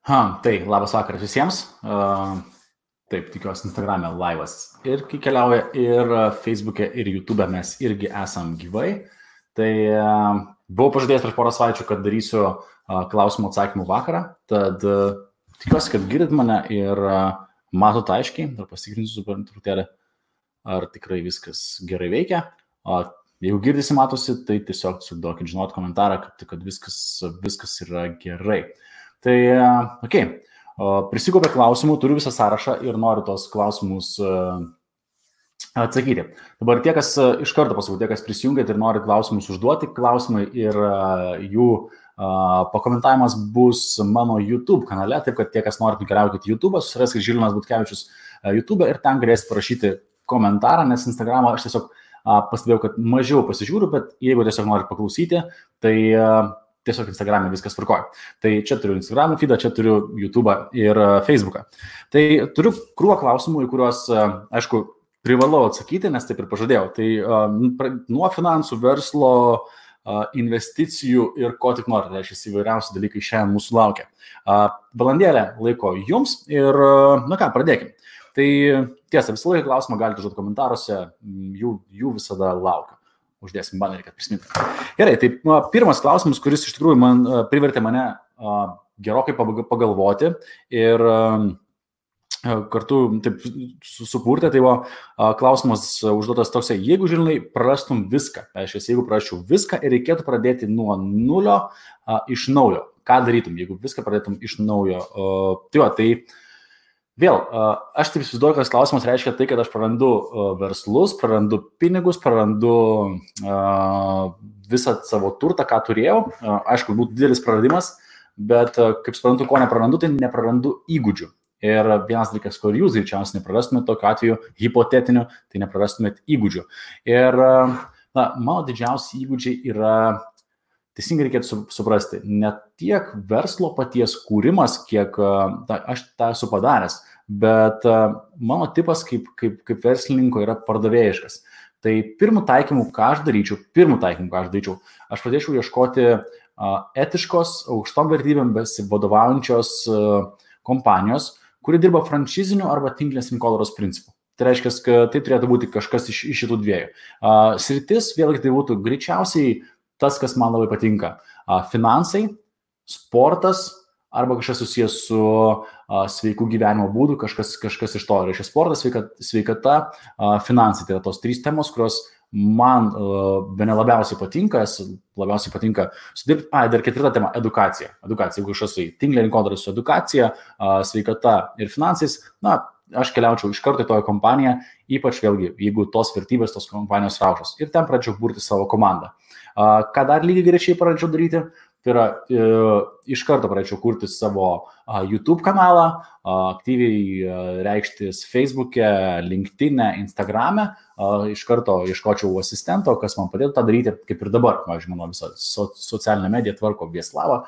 Tai labas vakaras visiems. Taip, tikiuosi Instagram'e laivas ir kai keliauja ir Facebook'e ir YouTube'e mes irgi esam gyvai. Tai buvau pažadėjęs prieš porą savaičių, kad darysiu klausimų atsakymų vakarą. Tad tikiuosi, kad girdit mane ir matot aiškiai. Dar pasikrinsiu truputėlį, ar tikrai viskas gerai veikia. Jeigu girdisi, matosi, tai tiesiog duokit žinot komentarą, kad viskas yra gerai. Tai, prisikaupė klausimų, turiu visą sąrašą ir noriu tos klausimus atsakyti. Dabar tie, kas iš karto pasakau, tie, kas prisijungėt ir nori klausimus užduoti, klausimai ir jų pakomentavimas bus mano YouTube kanale, taip kad tie, kas norit nukeliaukite YouTube'ą, susiraskite Žilvinas Butkevičius YouTube'ą ir ten galėsite parašyti komentarą, nes Instagram'ą aš tiesiog pastebėjau, kad mažiau pasižiūriu, bet jeigu tiesiog norit paklausyti, tai tiesiog Instagram'e viskas tvarkoja. Tai čia turiu Instagram'o feedą, čia turiu YouTube'ą ir Facebook'ą. Tai turiu krūvą klausimų, į kuriuos, aišku, privalau atsakyti, nes taip ir pažadėjau. Tai nuo finansų, verslo, investicijų ir ko tik norite, tai šis įvairiausi dalykai šiandien mūsų laukia. Valandėlę laiko jums ir, pradėkim. Tai tiesa, visą laiką klausimą galite užduoti komentaruose, jų visada laukiu. Uždėsim banerį, kad prisiminti. Gerai, tai pirmas klausimas, kuris iš tikrųjų privertė mane gerokai pagalvoti ir kartu taip supurtė, tai klausimas užduotas toksai, jeigu Žilvinai prarastum viską, jeigu prarasčiau viską ir reikėtų pradėti nuo nulio iš naujo, ką darytum, jeigu viską pradėtum iš naujo? Vėl, aš taip įsivaizduoju, kad klausimas reiškia tai, kad aš prarandu verslus, prarandu pinigus, prarandu visą savo turtą, ką turėjau. Aišku, būtų didelis praradimas, bet kaip suprantu, ko neprarandu, tai neprarandu įgūdžių. Ir vienas dalykas, kur jūs greičiausiai neprarastumėt tokiu atveju hipotetiniu, tai neprarastumėt įgūdžių. Ir mano didžiausi įgūdžiai yra, teisingai reikėtų suprasti, ne tiek verslo paties kūrimas, kiek aš tą esu padaręs, bet mano tipas kaip verslininko yra pardavėjiškas. Tai pirmų taikymų, ką aš daryčiau, aš pradėčiau ieškoti etiškos, aukštom vertybėm besivadovaujančios kompanijos, kuri dirba franšiziniu arba tinklinės rinkodaros principu. Tai reiškia, kad tai turėtų būti kažkas iš šitų dviejų. Sritis, vėlgi tai būtų greičiausiai tas, kas man labai patinka. Finansai, sportas arba kažkas susijęs su sveiku gyvenimo būdu, kažkas iš to. Reiškia sportas, sveikata, finansai. Tai yra tos trys temos, kurios man bene labiausiai patinka sudirbti. Dar ketvirta tema – edukacija. Jeigu kažkas su tinklinė rinkodara su edukacija, sveikata ir finansais, aš keliaučiau iš karto į toją kompaniją, ypač vėlgi, jeigu tos vertybės, tos kompanijos raušos. Ir ten pradėčiau burti savo komandą. Ką dar lygiai greičiai pradėčiau daryti, tai yra iš karto pradėčiau kurti savo YouTube kanalą, aktyviai reikštis Facebook'e, LinkedIn'e, Instagram'e, iš karto ieškočiau asistento, kas man padėtų tą daryti, kaip ir dabar. Pavyzdžiui, mano visą socialinę mediją tvarko Vieslava,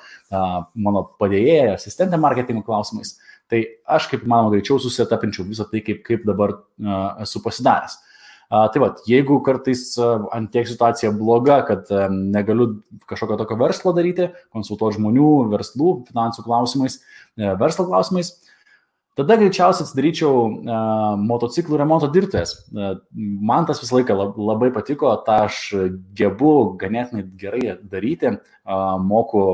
mano padėjėja, asistentė marketingo klausimais. Tai aš kaip manoma greičiau susetapinčiau visą tai, kaip dabar esu pasidaręs. Tai jeigu kartais ant tiek situacija bloga, kad negaliu kažkokio tokio verslo daryti, konsultuoti žmonių, verslų, finansų klausimais, verslo klausimais, tada greičiausiai atsidaryčiau motociklų remonto dirbtuves. Man tas visą laiką labai patiko, tą aš gebu ganėtinai gerai daryti, moku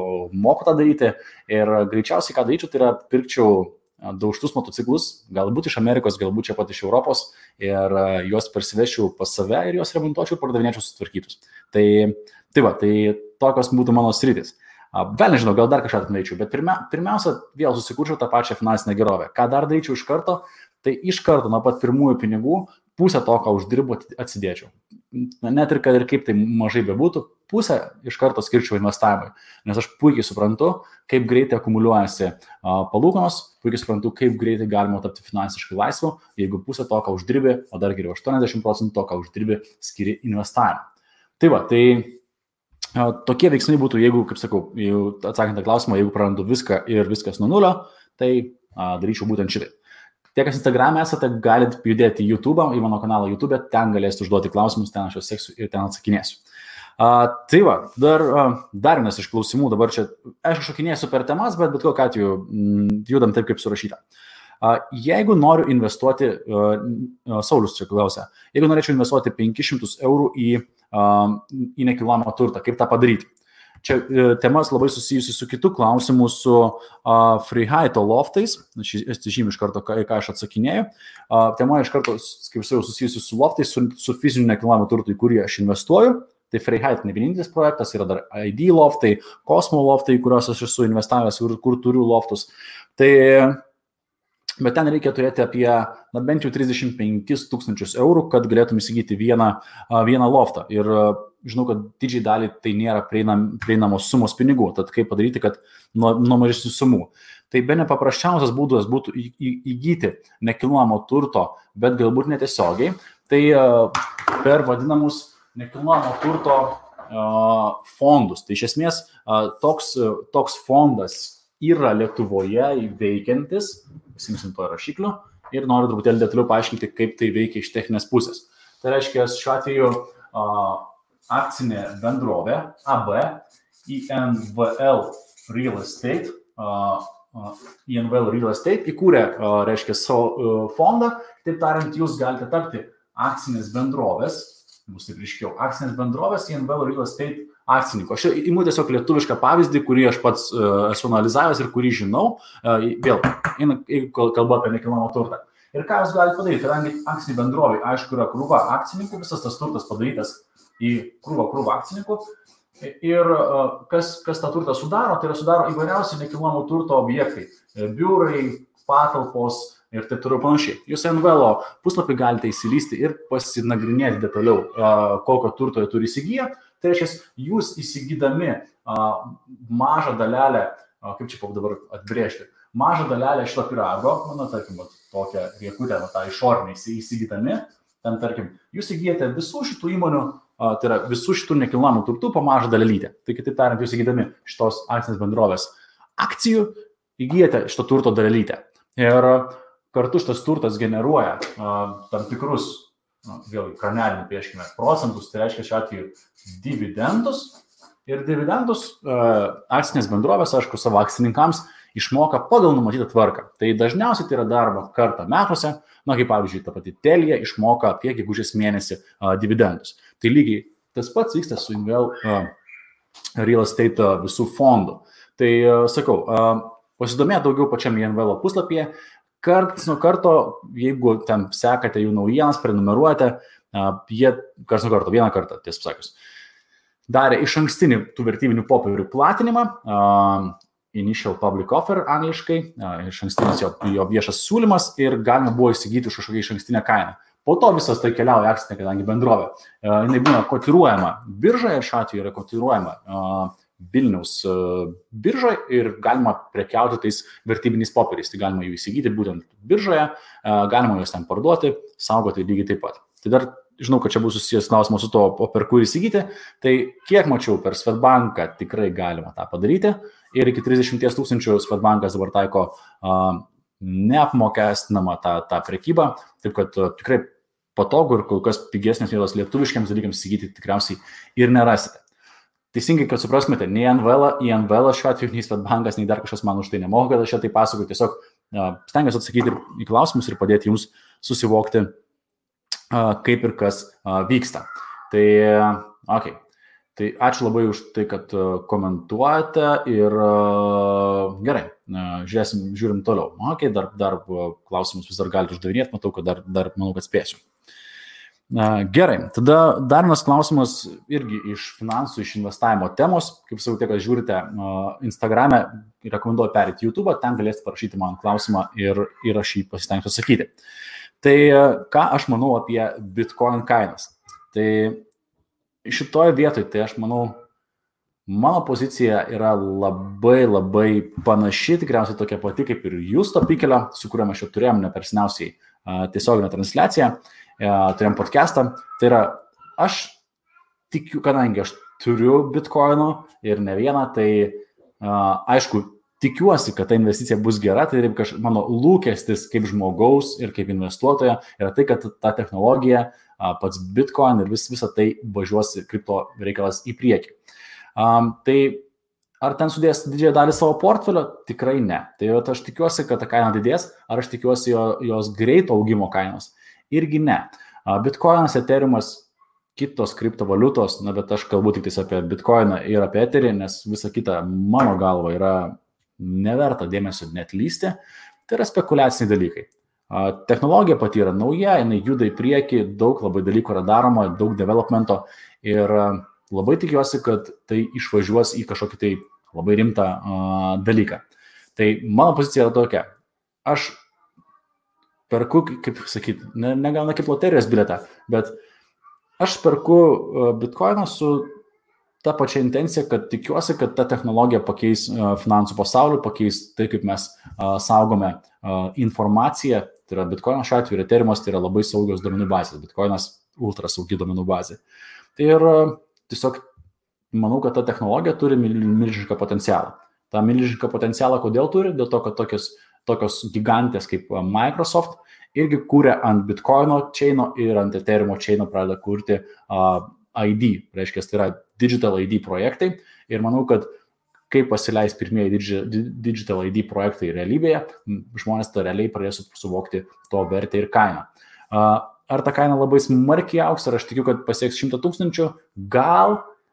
tą daryti ir greičiausiai ką daryčiau, tai yra pirkčiau daužtus motociklus, galbūt iš Amerikos, galbūt čia pat iš Europos ir juos parsivešiau pas save ir juos remontuočiau ir pardavinėčiau sutvarkytus. Tai tokios būtų mano sritis. Gal nežinau, gal dar kažką atmeičiau, bet pirmiausia, vėl susikurčiau tą pačią finansinę gerovę. Ką dar daryčiau iš karto, tai iš karto nuo pat pirmųjų pinigų pusę to, ką uždirbu, atsidėčiau. Net ir kad ir kaip tai mažai bebūtų, pusę iš karto skirčiau investavimui, nes aš puikiai suprantu, kaip greitai akumuliuojasi palūkanos, puikiai suprantu, kaip greitai galima tapti finansiškai laisvu, jeigu pusę to, ką uždirbi, o dar geriau 80% to, ką uždirbi, skiri investavimui. Tai tokie veiksmai būtų, jeigu, kaip sakau, atsakant tą klausimą, jeigu prarandu viską ir viskas nuo nulio, tai daryčiau būtent šitai. Tie, kas Instagram'e esate, galite judėti į YouTube, į mano kanalą YouTube, ten galėsite užduoti klausimus, ten aš juos seksiu ir ten atsakinėsiu. Tai va, dar vienas iš klausimų, dabar čia, aišku, šokinėsiu per temas, bet kokiu atveju judam taip, kaip surašyta. Jeigu noriu investuoti, Saulius čia klausia, jeigu norėčiau investuoti 500 eurų į nekilnojamą turtą, kaip tą padaryti? Čia temas labai susijusi su kitu klausimu, su Freiheito loftais, aš žymiu iš karto, ką aš atsakinėjau. Tema iš karto, kaip sakiau, susijusi su loftais, su fiziniu nekilnojamu turtu, į kurį aš investuoju. Tai Freiheit ne vienintelis projektas, yra dar ID loftai, Cosmo loftai, kuriuos aš esu investavęs ir kur turiu loftus. Bet ten reikia turėti apie bent jau 35 000 eurų, kad galėtum įsigyti vieną loftą. Ir žinau, kad didžiai dalį tai nėra prieinamos sumos pinigų. Tad kaip padaryti, kad nuo mažesnių sumų. Tai bene paprasčiausias būdas būtų įgyti nekilnojamo turto, bet galbūt netiesiogiai. Tai per vadinamus nekilnojamo turto fondus. Tai iš esmės toks fondas yra Lietuvoje veikiantis, pasimsim to rašiklių, ir noriu truputėlį detaliau paaiškinti, kaip tai veikia iš techninės pusės. Tai reiškia, šiuo atveju akcinė bendrovė AB INVL Real Estate įkūrė, reiškia, savo fondą. Taip tariant, jūs galite tapti akcinės bendrovės, bus taip ryškiau, akcinės bendrovės INVL Real Estate akcininko. Aš imu tiesiog lietuvišką pavyzdį, kurį aš pats esu analizavęs ir kurį žinau. Vėl, kalba apie nekilnojamą turtą. Ir ką jūs galite padaryti? Kadangi akcinė bendrovė, aišku, yra krūva akcininkų, visas tas turtas padarytas į krūvą akcininkų. Ir kas tą turtą sudaro, tai yra sudaro įvairiausi nekilnojamo turto objektai. Biurai, patalpos ir taip toliau panašiai. Jūs NVL puslapį galite įsilysti ir pasinagrinėti detaliau, kokio turto jie turi įsigiję. Tai reiškia, jūs įsigydami mažą dalelę, kaip čia dabar atbrėžti, mažą dalelę šito pyrago, tarkim, tokią riekutę, tą išorinį įsigydami, ten, tarkim, jūs įgyjate visų šitų įmonių, tai yra visų šitų nekilnojamų turtų po mažą dalelytę. Tai kitaip tariant, jūs įgydami šitos akcinės bendrovės akcijų, įgyjate šito turto dalelytę. Ir kartu šitas turtas generuoja tam tikrus, vėlgi, kranelį pieškime, procentus, tai reiškia šiuo atveju dividendus. Ir dividendus akcinės bendrovės, aišku, savo akcininkams išmoka pagal numatytą tvarką. Tai dažniausiai tai yra darbo kartą metuose, kaip pavyzdžiui, ta pati Telia išmoka apie gegužės mėnesį dividendus. Tai lygiai tas pats vyksta su INVL Real Estate visų fondų. Tai sakau, pasidomėti daugiau pačiam INVL puslapyje. Karts nuo karto, jeigu ten sekate jų naujienas, prenumeruojate, jie karts nuo karto, vieną kartą, tiesą pasakius, darė iš ankstinį tų vertybinių popierių platinimą, initial public offer angliškai, iš ankstinis jo viešas siūlymas ir galima buvo įsigyti už kažkokią iš ankstinę kainą. Po to visas tai keliauja akcinė, kadangi bendrovė. Jinai būna kotiruojama biržoje, šiuo atveju yra kotiruojama Vilniaus biržoje ir galima prekiauti tais vertybiniais popieriais. Tai galima jų įsigyti būtent biržoje, galima juos ten parduoti, saugoti lygiai taip pat. Tai dar žinau, kad čia bus susijęs klausimas su to, per kur įsigyti. Tai kiek mačiau, per Swedbanką tikrai galima tą padaryti. Ir iki 30 000 Swedbankas dabar taiko neapmokestinamą tą prekybą. Taip kad tikrai patogu ir kol kas pigesnės vietos lietuviškiams dalykams įsigyti tikriausiai ir nerasite. Teisingai, kad suprastumėte, nei INVL šiuo atveju, nei Swedbankas, nei dar kažkas man už tai nemoka, kad aš čia tai pasakoju. Tiesiog stengiuosi atsakyti į klausimus ir padėti jums susivokti, kaip ir kas vyksta. Tai, okay. Tai ačiū labai už tai, kad komentuojate ir gerai, žiūrim toliau. Okay, dar klausimus vis dar galite uždavinėti, matau, kad dar manau, kad spėsiu. Gerai, tada dar vienas klausimas irgi iš finansų, iš investavimo temos. Kaip sakau, kad žiūrite Instagram'e, rekomenduoju perėti YouTube, ten galėsite parašyti man klausimą ir aš jį pasistengsiu atsakyti. Tai ką aš manau apie Bitcoin kainas? Tai šitoje vietoje, tai aš manau, mano pozicija yra labai panaši, tikriausiai tokia pati kaip ir Justo Pikelio, su kuriuo mes čia turėjom neperseniausiai tiesioginę transliaciją. Turėjom podcastą, tai yra, aš tikiu, kadangi aš turiu bitkoinų ir ne vieną, tai aišku, tikiuosi, kad ta investicija bus gera, tai mano lūkestis kaip žmogaus ir kaip investuotojo yra tai, kad ta technologija, pats Bitcoin ir visą tai važiuos kripto reikalas į priekį. Tai ar ten sudės didžiąją dalį savo portfelio? Tikrai ne. Tai aš tikiuosi, kad ta kaina didės, ar aš tikiuosi jos greito augimo kainos? Irgi ne. Bitcoinas, Ethereumas, kitos kriptovaliutos, bet aš kalbu tik apie Bitcoiną ir apie Etherį, nes visa kita mano galva yra neverta dėmesio net lysti. Tai yra spekuliaciniai dalykai. Technologija pati yra nauja, jinai juda į priekį, daug labai dalykų yra daroma, daug developmento ir labai tikiuosi, kad tai išvažiuos į kažkokį tai labai rimtą dalyką. Tai mano pozicija yra tokia. Aš perku, kaip sakyti, negalna kaip loterijos bilietą, bet aš perku Bitcoiną su ta pačia intencija, kad tikiuosi, kad ta technologija pakeis finansų pasaulį, pakeis tai, kaip mes saugome informaciją. Tai yra Bitcoinas šiuo atveju, Ethereumas tai yra labai saugios duomenų bazės, Bitcoinas ultra saugi duomenų bazė. Tai ir tiesiog manau, kad ta technologija turi milžinišką potencialą. Ta milžinišką potencialą kodėl turi? Dėl to, kad tokios gigantės kaip Microsoft irgi kūrė ant Bitcoino chaino ir ant Ethereumo chaino pradeda kurti ID, reiškia, tai yra Digital ID projektai ir manau, kad kai pasileis pirmieji Digital ID projektai realybėje, žmonės tą realiai pradės suvokti to vertę ir kainą. Ar ta kaina labai smarkiai augs, ar aš tikiu, kad pasieks 100 000, gal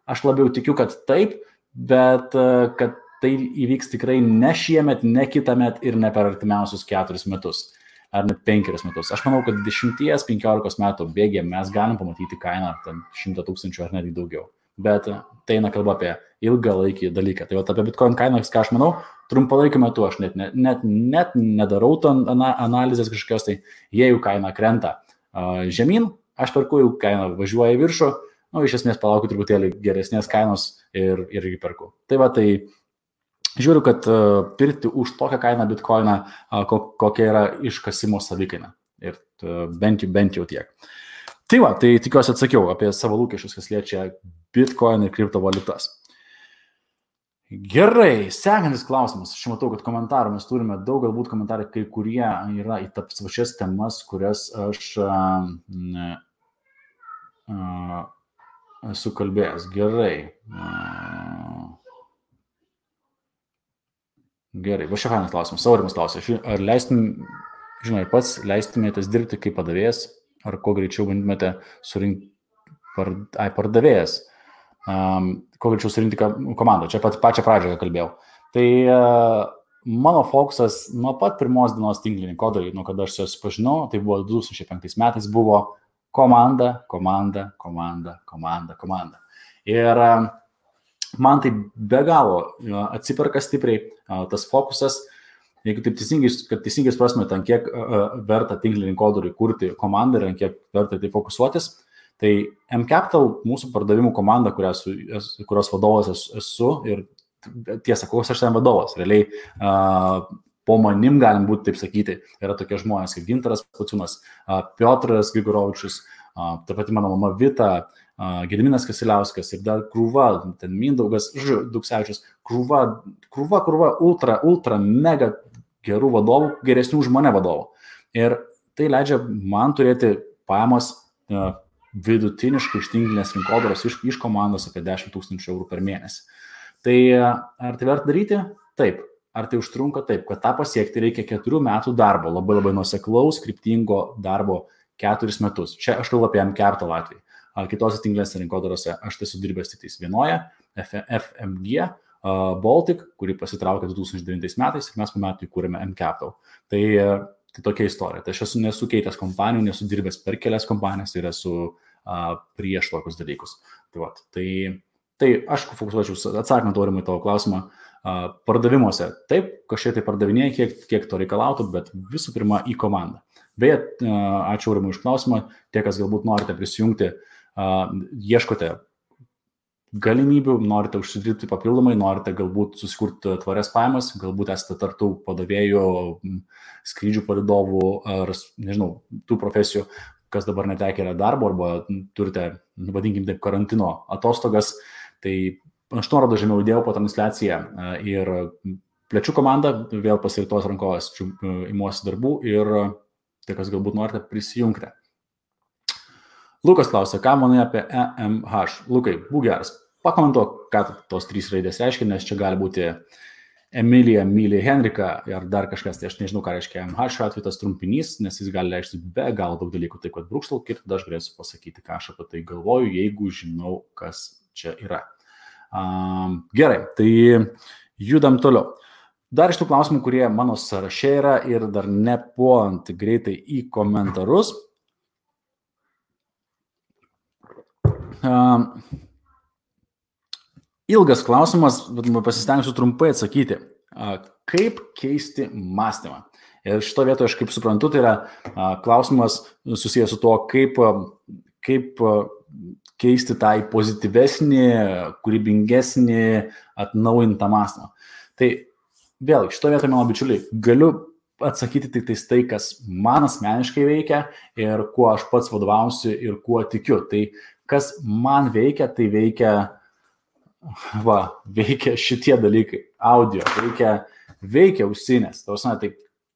aš labiau tikiu, kad taip, bet kad tai įvyks tikrai ne šiemet, ne kitąmet ir ne per artimiausius 4 metus. Ar net 5 metus. Aš manau, kad 10-15 metų bėgėje mes galim pamatyti kainą 100 000 ar netgi daugiau. Bet tai eina kalba apie ilgalaikį dalyką. Tai apie Bitcoin kainą, ką aš manau, trumpalaikiu metu aš net nedarau analizės kažkokios, tai jei jų kaina krenta žemyn, aš perku, jų kaina važiuoja į viršų, iš esmės palaukiu truputėlį geresnės kainos ir irgi perku. Tai žiūriu, kad pirkti už tokią kainą Bitcoiną, kokia yra iškasimo savikaina. Ir bent jau tiek. Tai tikiuosi atsakiau apie savo lūkesčius, kas liečia Bitcoin ir kriptovaliutas. Gerai, sekantis klausimas. Aš matau, kad komentarų mes turime daug, galbūt komentarai kai kurie yra į tas pačias temas, kurias aš esu kalbėjęs. Gerai, va šia fainas klausimas. Saurimas klausia, ar pats leistumėtės dirbti kaip padavėjas, ar kuo greičiau bandymėte surinkti pardavėjas, kuo greičiau surinkti komandą. Čia pačią pradžią kalbėjau. Tai mano fokusas nuo pat pirmos dienos tinklinį kodarį, nuo kada aš susipažinau, tai buvo 2005 metais, buvo komanda. Ir man tai be galo atsiperka stipriai tas fokusas, jeigu taip teisingai suprastumėte, ant kiek verta tinklinį kodoriui kurti komandą ir ant kiek verta tai fokusuotis, tai mCapital mūsų pardavimų komanda, kurios vadovas esu ir tiesa, koks aš ten vadovas, realiai po manim galim būti, taip sakyti, yra tokie žmonės kaip Gintaras Pociūnas, Piotras Grigorovičius, taip pat mano mama Vita, Gediminas Kasiliauskas ir dar krūva, ten Mindaugas Duksevičius, krūva ultra mega gerų vadovų, geresnių už mane vadovų. Ir tai leidžia man turėti pajamas vidutiniškai iš tinklinės rinkodaros iš komandos apie 10 000 eurų per mėnesį. Tai ar tai verta daryti? Taip. Ar tai užtrunka? Taip. Kad tą pasiekti reikia 4 metų darbo, labai nuoseklaus, kryptingo darbo 4 metus. Čia aš kalbu apie mCapital atvejį. Kitose tinklinėse rinkodarose aš tai sudirbęs tik vienoje, FMG Baltic, kuri pasitraukė 2009 metais ir mes po metų įkūrėme mCapital. Tai tokia istorija. Tai aš esu nesukeitęs kompanijų, nesu dirbęs per kelias kompanijas ir esu prieš tokius dalykus. Tai aš fokusuočiau, atsakant aurimui tavo klausimą, pardavimuose. Taip, kažkiek tai pardavinėjai, kiek to reikalautų, bet visų pirma į komandą. Beje, ačiū aurimui už klausimą, tie, kas galbūt norite prisijungti, ieškote galimybių, norite užsidirbti papildomai, norite galbūt susikurti tvarias pajamas, galbūt esate tartų padavėjų, skrydžių palydovų ar, nežinau, tų profesijų, kas dabar netekė darbo arba turite, vadinkim taip, karantino atostogas, tai aš nuorodą žemiau įdėjau po transliaciją ir plečiu komandą, vėl pasiritos rankovės imuosi darbų ir tai, kas galbūt norite, prisijungti. Lukas klausia, ką manai apie EMH? Lukai, būk geras, pakomentuok, ką tos 3 raidės reiškia, nes čia gali būti Emilija, Milija, Henrika ar dar kažkas, tai aš nežinau, ką reiškia EMH šiuo atveju tas trumpinys, nes jis gali reikšti be galo daug dalykų, taip kad brūkštelk ir tada aš galėsiu pasakyti, ką aš apie tai galvoju, jeigu žinau, kas čia yra. Gerai, tai judam toliau. Dar iš tų klausimų, kurie mano sąraše yra ir dar nepuolant greitai į komentarus. Ilgas klausimas, bet pasistengsiu trumpai atsakyti. Kaip keisti mąstymą? Ir šito vietoje, aš kaip suprantu, tai yra klausimas susijęs su to, kaip keisti tą į pozityvesnį, kūrybingesnį, atnaujintą mąstymą. Tai vėlgi, šito vietoje, mano bičiuliai, galiu atsakyti tik tai, kas man asmeniškai veikia ir kuo aš pats vadovausiu ir kuo tikiu. Tai kas man veikia, tai veikia šitie dalykai. Audio, veikia ausinės. Tai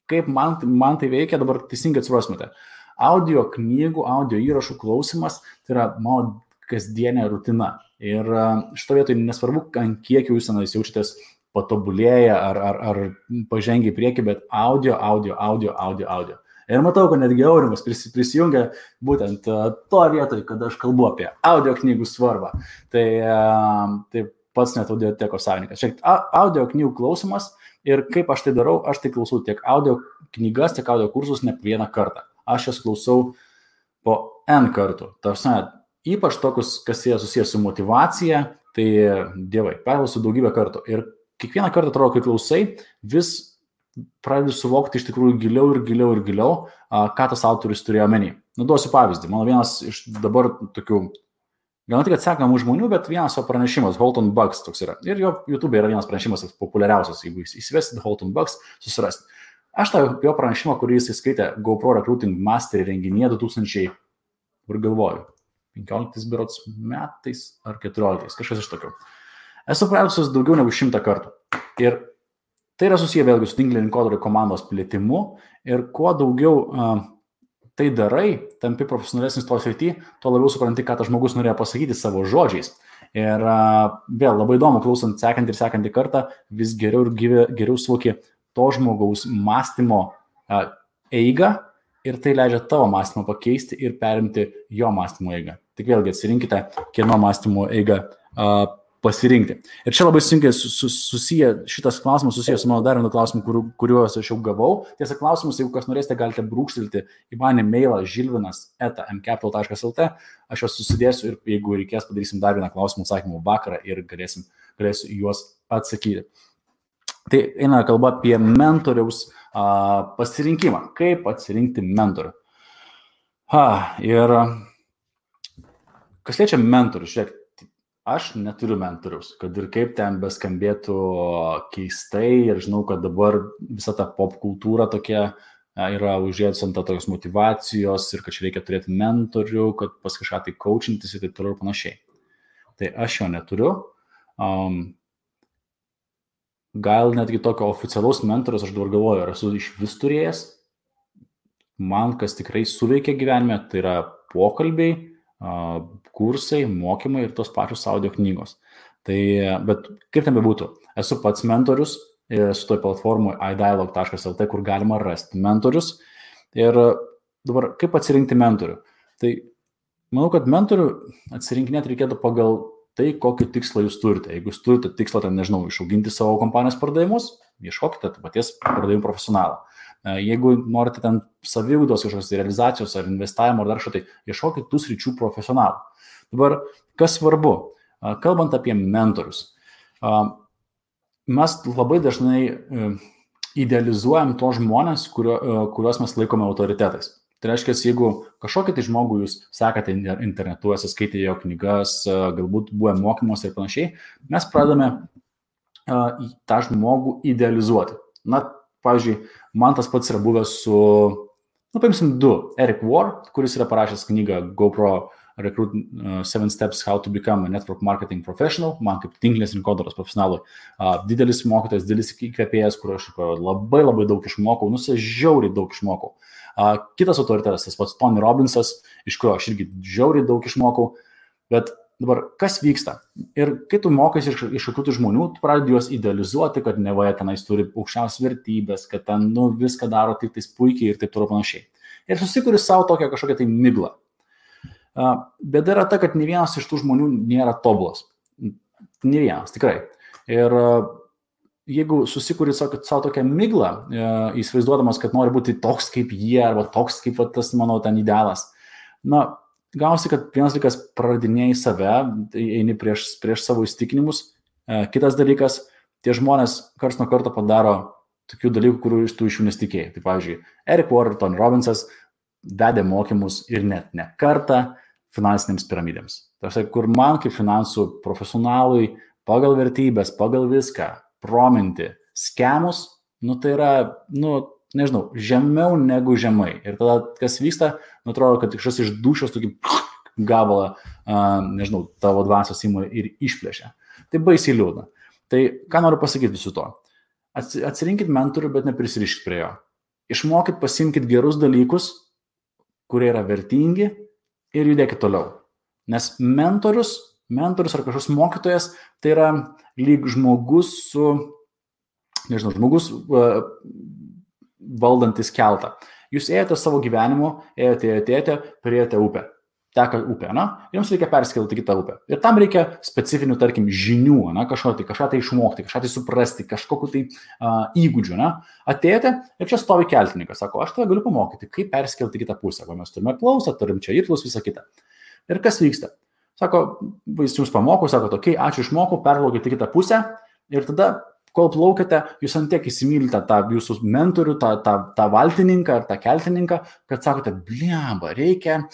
kaip man tai veikia, dabar teisingai atsiprasmate. Audio knygų, audio įrašų klausimas, tai yra mano kasdienė rutina. Ir šito vietoje nesvarbu, ant kiek jūs jaučiatės patobulėję ar pažengia į priekį, bet audio. Ir matau, kad netgi Aurimas prisijungia būtent to vietoj, kad aš kalbu apie audio knygų svarbą. Tai pats net audiotekos savininkas. Šiek audio knygų klausimas ir kaip aš tai darau, aš tai klausau tiek audio knygas, tiek audio kursus ne vieną kartą. Aš jas klausau po N kartų. Tarsi, ypač tokius, kas jie susijęs su motyvacija, tai dievai, perklausiu daugybę kartų. Ir kiekvieną kartą atrodo, kai klausai, vis pradedi suvokti iš tikrųjų giliau, ką tas autorius turėjo omeny. Duosiu pavyzdį. Mano vienas iš dabar tokių, gal ne tik atsekamų žmonių, bet vienas jo pranešimas, Halton Bugs toks yra. Ir jo YouTube yra vienas pranešimas populiariausias, jeigu įsivesit Halton Bugs, susirasti. Aš tą jo pranešimą, kurį jis įskaitė GoPro Recruiting Mastery renginyje 2000, kur galvoju, 15 berods metais ar 14, kažkas iš tokių. Esu praėjusius daugiau negu 100 kartų. Ir tai yra susiję vėlgi su tinklinio rinkodaros komandos plėtimu ir kuo daugiau tai darai, tampi profesionalesnis to srity, tuo labiau supranti, ką tas žmogus norėjo pasakyti savo žodžiais. Ir vėl labai įdomu, klausant sekantį kartą, vis geriau suvoki to žmogaus mąstymo eigą ir tai leidžia tavo mąstymą pakeisti ir perimti jo mąstymo eigą. Tik vėlgi atsirinkite, kieno mąstymo eigą pasirinkti. Ir čia labai sunkiai šitas klausimas susijęs su mano dar vienu klausimu, kuriuos aš jau gavau. Tiesa, klausimus, jeigu kas norėsite, galite brūkštelti į mane mailą žilvinas@mcapital.lt. Aš juos susidėsiu ir jeigu reikės, padarysim dar vieną klausimų atsakymų vakarą ir galėsiu juos atsakyti. Tai eina kalba apie mentoriaus pasirinkimą. Kaip atsirinkti mentorių? Ir kas liečia mentorių, žiūrėk, aš neturiu mentoriaus, kad ir kaip ten beskambėtų keistai ir žinau, kad dabar visa ta pop kultūra tokia yra užėjusi ant tokios motivacijos ir kad čia reikia turėti mentorių, kad pas kažką tai coachintis ir taip toliau ir panašiai. Tai aš jo neturiu. Gal netgi tokio oficialaus mentoriaus aš dabar galvoju, ar esu iš vis turėjęs. Man kas tikrai suveikia gyvenime, tai yra pokalbiai, kursai, mokymai ir tos pačios audio knygos. Bet kaip ten bebūtų, esu pats mentorius, esu toj platformoj idialog.lt, kur galima rasti mentorius. Ir dabar kaip atsirinkti mentorių? Tai manau, kad mentorių atsirinkinėti reikėtų pagal tai, kokį tikslą jūs turite. Jeigu jūs turite tikslą, ten, nežinau, išauginti savo kompanijos pardavimus, ieškokite paties pardavimų profesionalą. Jeigu norite ten saviugdos kažkokios realizacijos ar investavimo ar dar kažko, tai ieškokit tų sričių profesionalų. Dabar, kas svarbu, kalbant apie mentorius, mes labai dažnai idealizuojam tos žmonės, kuriuos mes laikome autoritetais. Tai reiškia, jeigu kažkokį tai žmogų jūs sekate internetu, skaitėte jo knygas, galbūt buvo mokymuose ir panašiai, mes pradame tą žmogų idealizuoti. Na, pavyzdžiui, man tas pats yra buvęs su, paimsim 2, Eric Ward, kuris yra parašęs knygą GoPro Recruit 7 Steps How to Become a Network Marketing Professional, man kaip tinklinės rinkodaros profesionalui. Didelis mokytojas, didelis įkvėpėjas, kur aš labai daug išmokau, žiauriai daug išmokau. Kitas autoritetas, tas pats Tony Robbinsas, iš kurio aš irgi žiauriai daug išmokau, bet dabar kas vyksta? Ir kai tu mokais iš kokių žmonių, tu pradedi juos idealizuoti, kad nevaja tenais turi aukščiausias vertybės, kad ten viską daro tik tais puikiai ir taip toliau panašiai. Ir susikuri savo tokią kažkokią tai miglą. Bėda yra ta, kad ne vienas iš tų žmonių nėra tobulas. Ne vienas, tikrai. Ir jeigu susikuri savo tokią miglą, įsivaizduodamas, kad nori būti toks kaip jie, arba toks kaip tas mano ten idealas, gausi, kad vienas dalykas praradinėjai save, eini prieš savo įsitikinimus, kitas dalykas, tie žmonės karts nuo karto padaro tokių dalykų, kurių tu iš jų nesitikėjai. Tai pavyzdžiui, Eric Ward, Tony Robbinsas vedė mokymus ir net ne kartą finansinėms piramidėms. Tai kur man kaip finansų profesionalui pagal vertybės, pagal viską, prominti, skemus, tai yra, nežinau, žemiau negu žemai. Ir tada, kas vyksta, atrodo, kad kažkas iš dušios tokį gabalą, nežinau, tavo dvasios įmų ir išplėšia. Tai baisiai liūdna. Tai ką noriu pasakyti visu to? Atsirinkit mentorių, bet neprisiriškit prie jo. Išmokit, pasimkit gerus dalykus, kurie yra vertingi ir judėkit toliau. Nes mentorius ar kažkoks mokytojas, tai yra lyg žmogus valdantis keltą. Jūs ėjote savo gyvenimu, ėjote, priėjote upę. Teka upė, jums reikia perskelti kitą upę. Ir tam reikia specifinių, tarkim, žinių, kažką tai išmokti, kažką tai suprasti, kažkokiu tai įgūdžių. Atėjote ir čia stovi keltininkas, sako, aš tave galiu pamokyti, kaip perskelti kitą pusę. Mes turime klausą, turim čia irklus, visą kitą. Ir kas vyksta? Sako, jis jums pamoko, sako, okei, ačiū išmokau, perplaukite kitą pusę ir tada, kol plaukite, jūs ant tiek įsimylite tą jūsų mentorių, tą valtininką ar tą keltininką, kad sakote, bliamba, reikia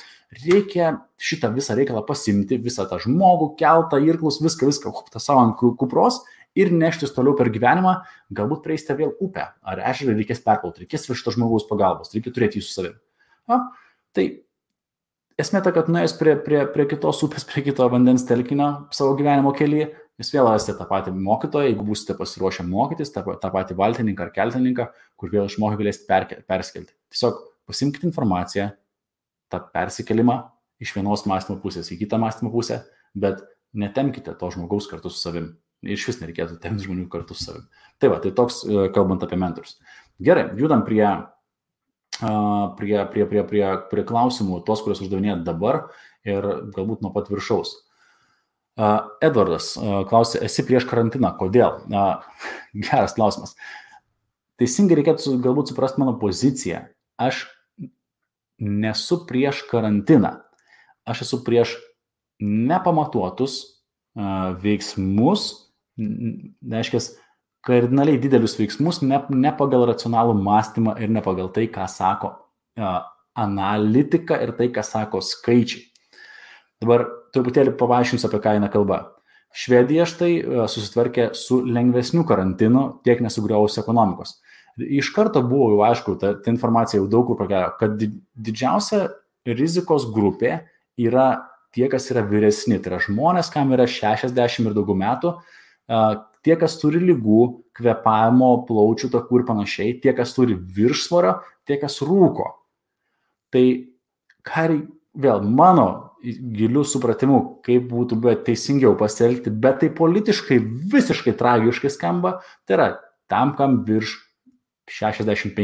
šitą visą reikalą pasimti, visą tą žmogų, keltą, irklus, viską, tą savo ant kupros ir neštis toliau per gyvenimą, galbūt prieisite vėl upę, ar ežerą reikės perplauti, reikės šito žmogaus pagalbos, reikia turėti jį su savimi. Tai esmė ta, kad nuėjus prie kitos upės, prie kito vandens telkinio savo gyvenimo kelyje, jūs vėl rasite tą patį mokytoją, jeigu būsite pasiruošę mokytis, tą patį valtininką ar keltininką, kur vėl išmokę galėsite perskelti. Tiesiog pasimkite informaciją, tą persikelimą iš vienos mąstymo pusės į kitą mąstymo pusę, bet netemkite to žmogaus kartu su savim. Iš vis nereikėtų temti žmonių kartu su savim. Tai va, tai toks kalbant apie mentorius. Gerai, judam prie klausimų, tos, kuriuos uždavinėjat dabar ir galbūt nuo pat viršaus. Edvardas klausė, esi prieš karantiną, kodėl? Geras klausimas. Teisingai reikėtų galbūt suprasti mano poziciją. Aš nesu prieš karantiną. Aš esu prieš nepamatuotus veiksmus, reiškia, kardinaliai didelius veiksmus, ne pagal racionalų mąstymą ir ne pagal tai, ką sako analitika ir tai, ką sako skaičiai. Dabar truputėlį paaiškinsiu, apie ką eina kalba. Švedija štai susitvarkė su lengvesniu karantinu, tiek nesugriovus ekonomikos. Iš karto buvo jau aišku, ta informacija jau daug kur pakėjo, kad didžiausia rizikos grupė yra tie, kas yra vyresni. Tai yra žmonės, kam yra 60 ir daugiau metų, tie, kas turi ligų, kvėpavimo, plaučių takų ir panašiai, tie, kas turi viršsvorio, tie, kas rūko. Tai vėl mano gilių supratimų, kaip būtų teisingiau pasielgti, bet tai politiškai visiškai tragiškai skamba, tai yra tam, kam virš 65.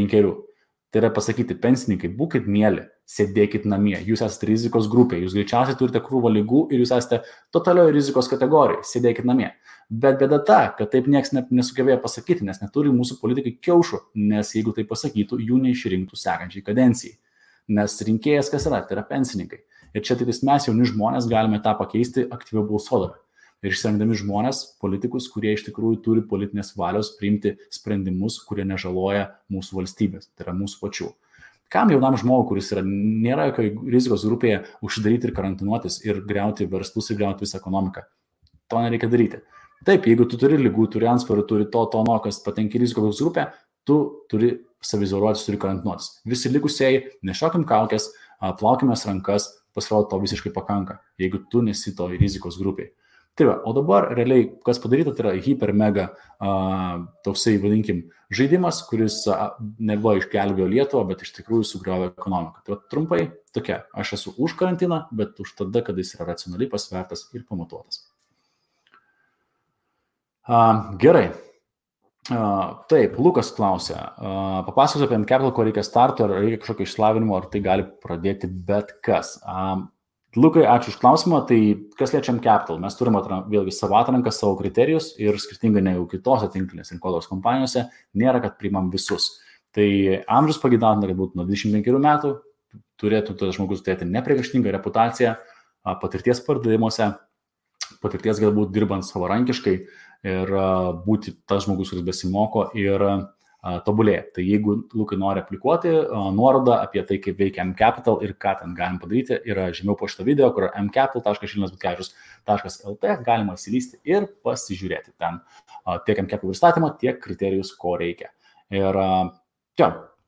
Tai yra pasakyti, pensininkai, būkit mieli, sėdėkit namie, jūs esate rizikos grupė, jūs greičiausiai turite krūvą ligų ir jūs esate totalioje rizikos kategorijai, sėdėkit namie. Bet bėda ta, kad taip nieks nesugebėjo pasakyti, nes neturi mūsų politikai kiaušų, nes jeigu tai pasakytų, jų neišrinktų sekančiai kadencijai. Nes rinkėjas kas yra? Tai yra pensininkai. Ir čia tai mes jauni žmonės galime tą pakeisti aktyviau balsuodami. Ir išsirinkdami žmonės, politikus, kurie iš tikrųjų turi politinės valios priimti sprendimus, kurie nežaloja mūsų valstybės, tai yra mūsų pačių. Kam jaunam žmogui, kuris nėra jokioje rizikos grupėje, užsidaryti ir karantinuotis ir griauti verslus ir griauti visą ekonomiką? To nereikia daryti. Taip, jeigu tu turi ligų, turi antsvorį, turi to, kas patenki rizikos grupę, tu turi saviizoliuotis, turi karantinuotis. Visi likusieji, nešiokim kaukės, plaukimės rankas, pasirodo to visiškai pakanka, jeigu tu nesi to rizikos grupiai. Tai va, o dabar realiai, kas padaryta, tai yra hiper mega toksai, vadinkim, žaidimas, kuris nebuvo išgelbėjo Lietuvą, bet iš tikrųjų sugriovė ekonomiką. Tai va, trumpai tokia, aš esu už karantiną, bet už tada, kada jis yra racionaliai pasvertas ir pamatuotas. Gerai. Taip, Lukas klausė, papasakos apie mCapital, ko reikia starto, ar reikia kažkokio išsilavinimo, ar tai gali pradėti bet kas. Lukai, ačiū už klausimą. Tai kas liečia mCapital, mes turime vėlgi savo atranką, savo kriterijus ir skirtingai negu kitose tinklinės rinkodaros kompanijose, nėra, kad priimam visus. Tai amžius pageidatina, kad būtų nuo 25 metų, turėtų tas žmogus turėti nepriekaištingą reputaciją, patirties pardavimuose, patirties galbūt dirbant savarankiškai ir būti tas žmogus, kuris besimoko ir tobulėja. Tai jeigu Lukai nori aplikuoti, nuoroda apie tai, kaip veikia mCapital ir ką ten galim padaryti, yra žemiau po šito video, kur mcapital.šilinas.lt, galima įsilysti ir pasižiūrėti ten tiek mCapital pristatymą, tiek kriterijus, ko reikia. Ir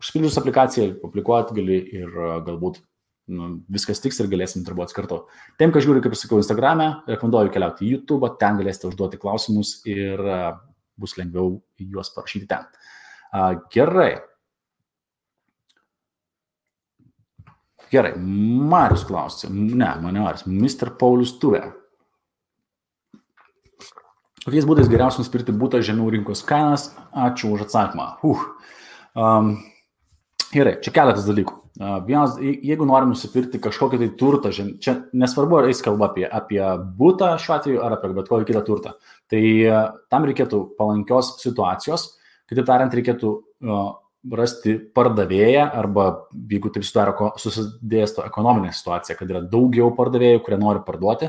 užpildžius aplikaciją, aplikuoti gali ir galbūt viskas tiks ir galėsim darbuotis kartu. Tiem, kas žiūri, kaip ir sakiau, Instagram'e, rekomenduoju keliauti į YouTube, ten galėsite užduoti klausimus ir bus lengviau juos parašyti ten. Gerai. Marius klausė. Mr. Paulius Tuvė. Kokiais būdais geriausia nusipirkti butą žemiau rinkos kainas? Ačiū už atsakymą. Gerai, čia keletas dalykų. Vienas, jeigu norim nusipirkti kažkokį tai turtą, čia nesvarbu, ar eis kalba apie butą šiuo atveju, ar apie bet kokį kitą turtą. Tai tam reikėtų palankios situacijos. Kitaip tariant, reikėtų rasti pardavėją arba, jeigu taip susidėsto ekonominė situacija, kad yra daugiau pardavėjų, kurie nori parduoti,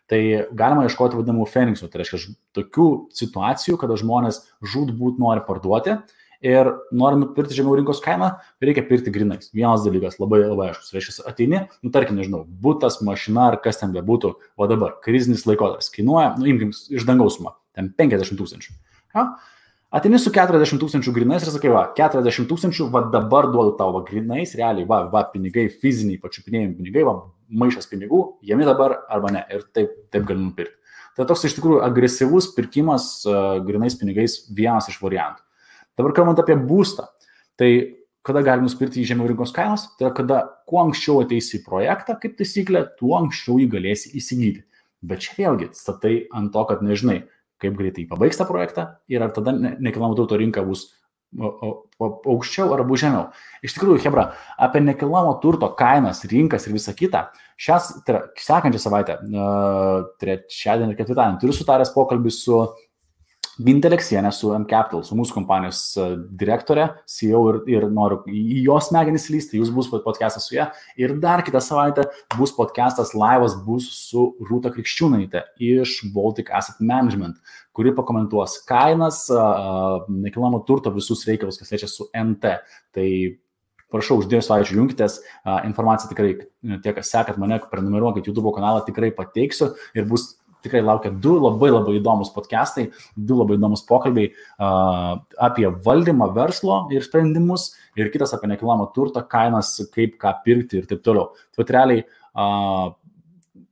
tai galima ieškoti vadinamų Phoenixų. Tai reiškia tokių situacijų, kada žmonės žūtbūt nori parduoti ir nori nupirkti žemiau rinkos kainą, reikia pirkti grinais. Vienas dalykas, labai aiškus. Reiškia, ateini, tarkim, nežinau, butas, mašina ar kas ten bebūtų, o dabar krizinis laikotarpis kainuoja, imkim iš dangaus sumą, ten 50 000. Ja? Ateini su 40 000 grinais ir sakai, 40 000, dabar duodu tau grinais, realiai, pinigai, fiziniai, pačiupinėjami pinigai, maišas pinigų, jami dabar arba ne, ir taip gali nupirkti. Tai toks iš tikrųjų agresyvus pirkimas grinais pinigais vienas iš variantų. Dabar kalbant apie būstą, tai kada gali nusipirkti į žemiau rinkos kainos, tai yra kada kuo anksčiau ateisi į projektą, kaip taisyklė, tuo anksčiau jį galėsi įsigyti. Bet čia vėlgi statai ant to, kad nežinai, kaip greitai pabaigs tą projektą ir ar tada nekilnojamo turto rinka bus aukščiau ar bus žemiau. Iš tikrųjų, hebra, apie nekilnojamo turto kainas, rinkas ir visą kitą, sekančią savaitę, trečiadienį ir ketvirtadienį, turiu sutaręs pokalbį su Gintė Aleksienė, su mCapital, su mūsų kompanijos direktorė, CEO ir noriu į jos smegenis lysti, jūs bus podcastas su ją. Ir dar kitą savaitę bus podcastas laivas bus su Rūta Krikščiūnaitė iš Baltic Asset Management, kuri pakomentuos kainas, nekilnojamo turto visus reikalus, kas liečia su NT. Tai prašau, už 2 savaičių junkitės, informaciją tikrai, tie, kas sekat mane, prenumeruokit YouTube kanalą, tikrai pateiksiu ir bus tikrai laukia 2 labai įdomus podcastai, 2 labai įdomus pokalbiai apie valdymą verslo ir sprendimus ir kitas apie nekilnojamo turto kainas, kaip ką pirkti ir taip toliau. Tai realiai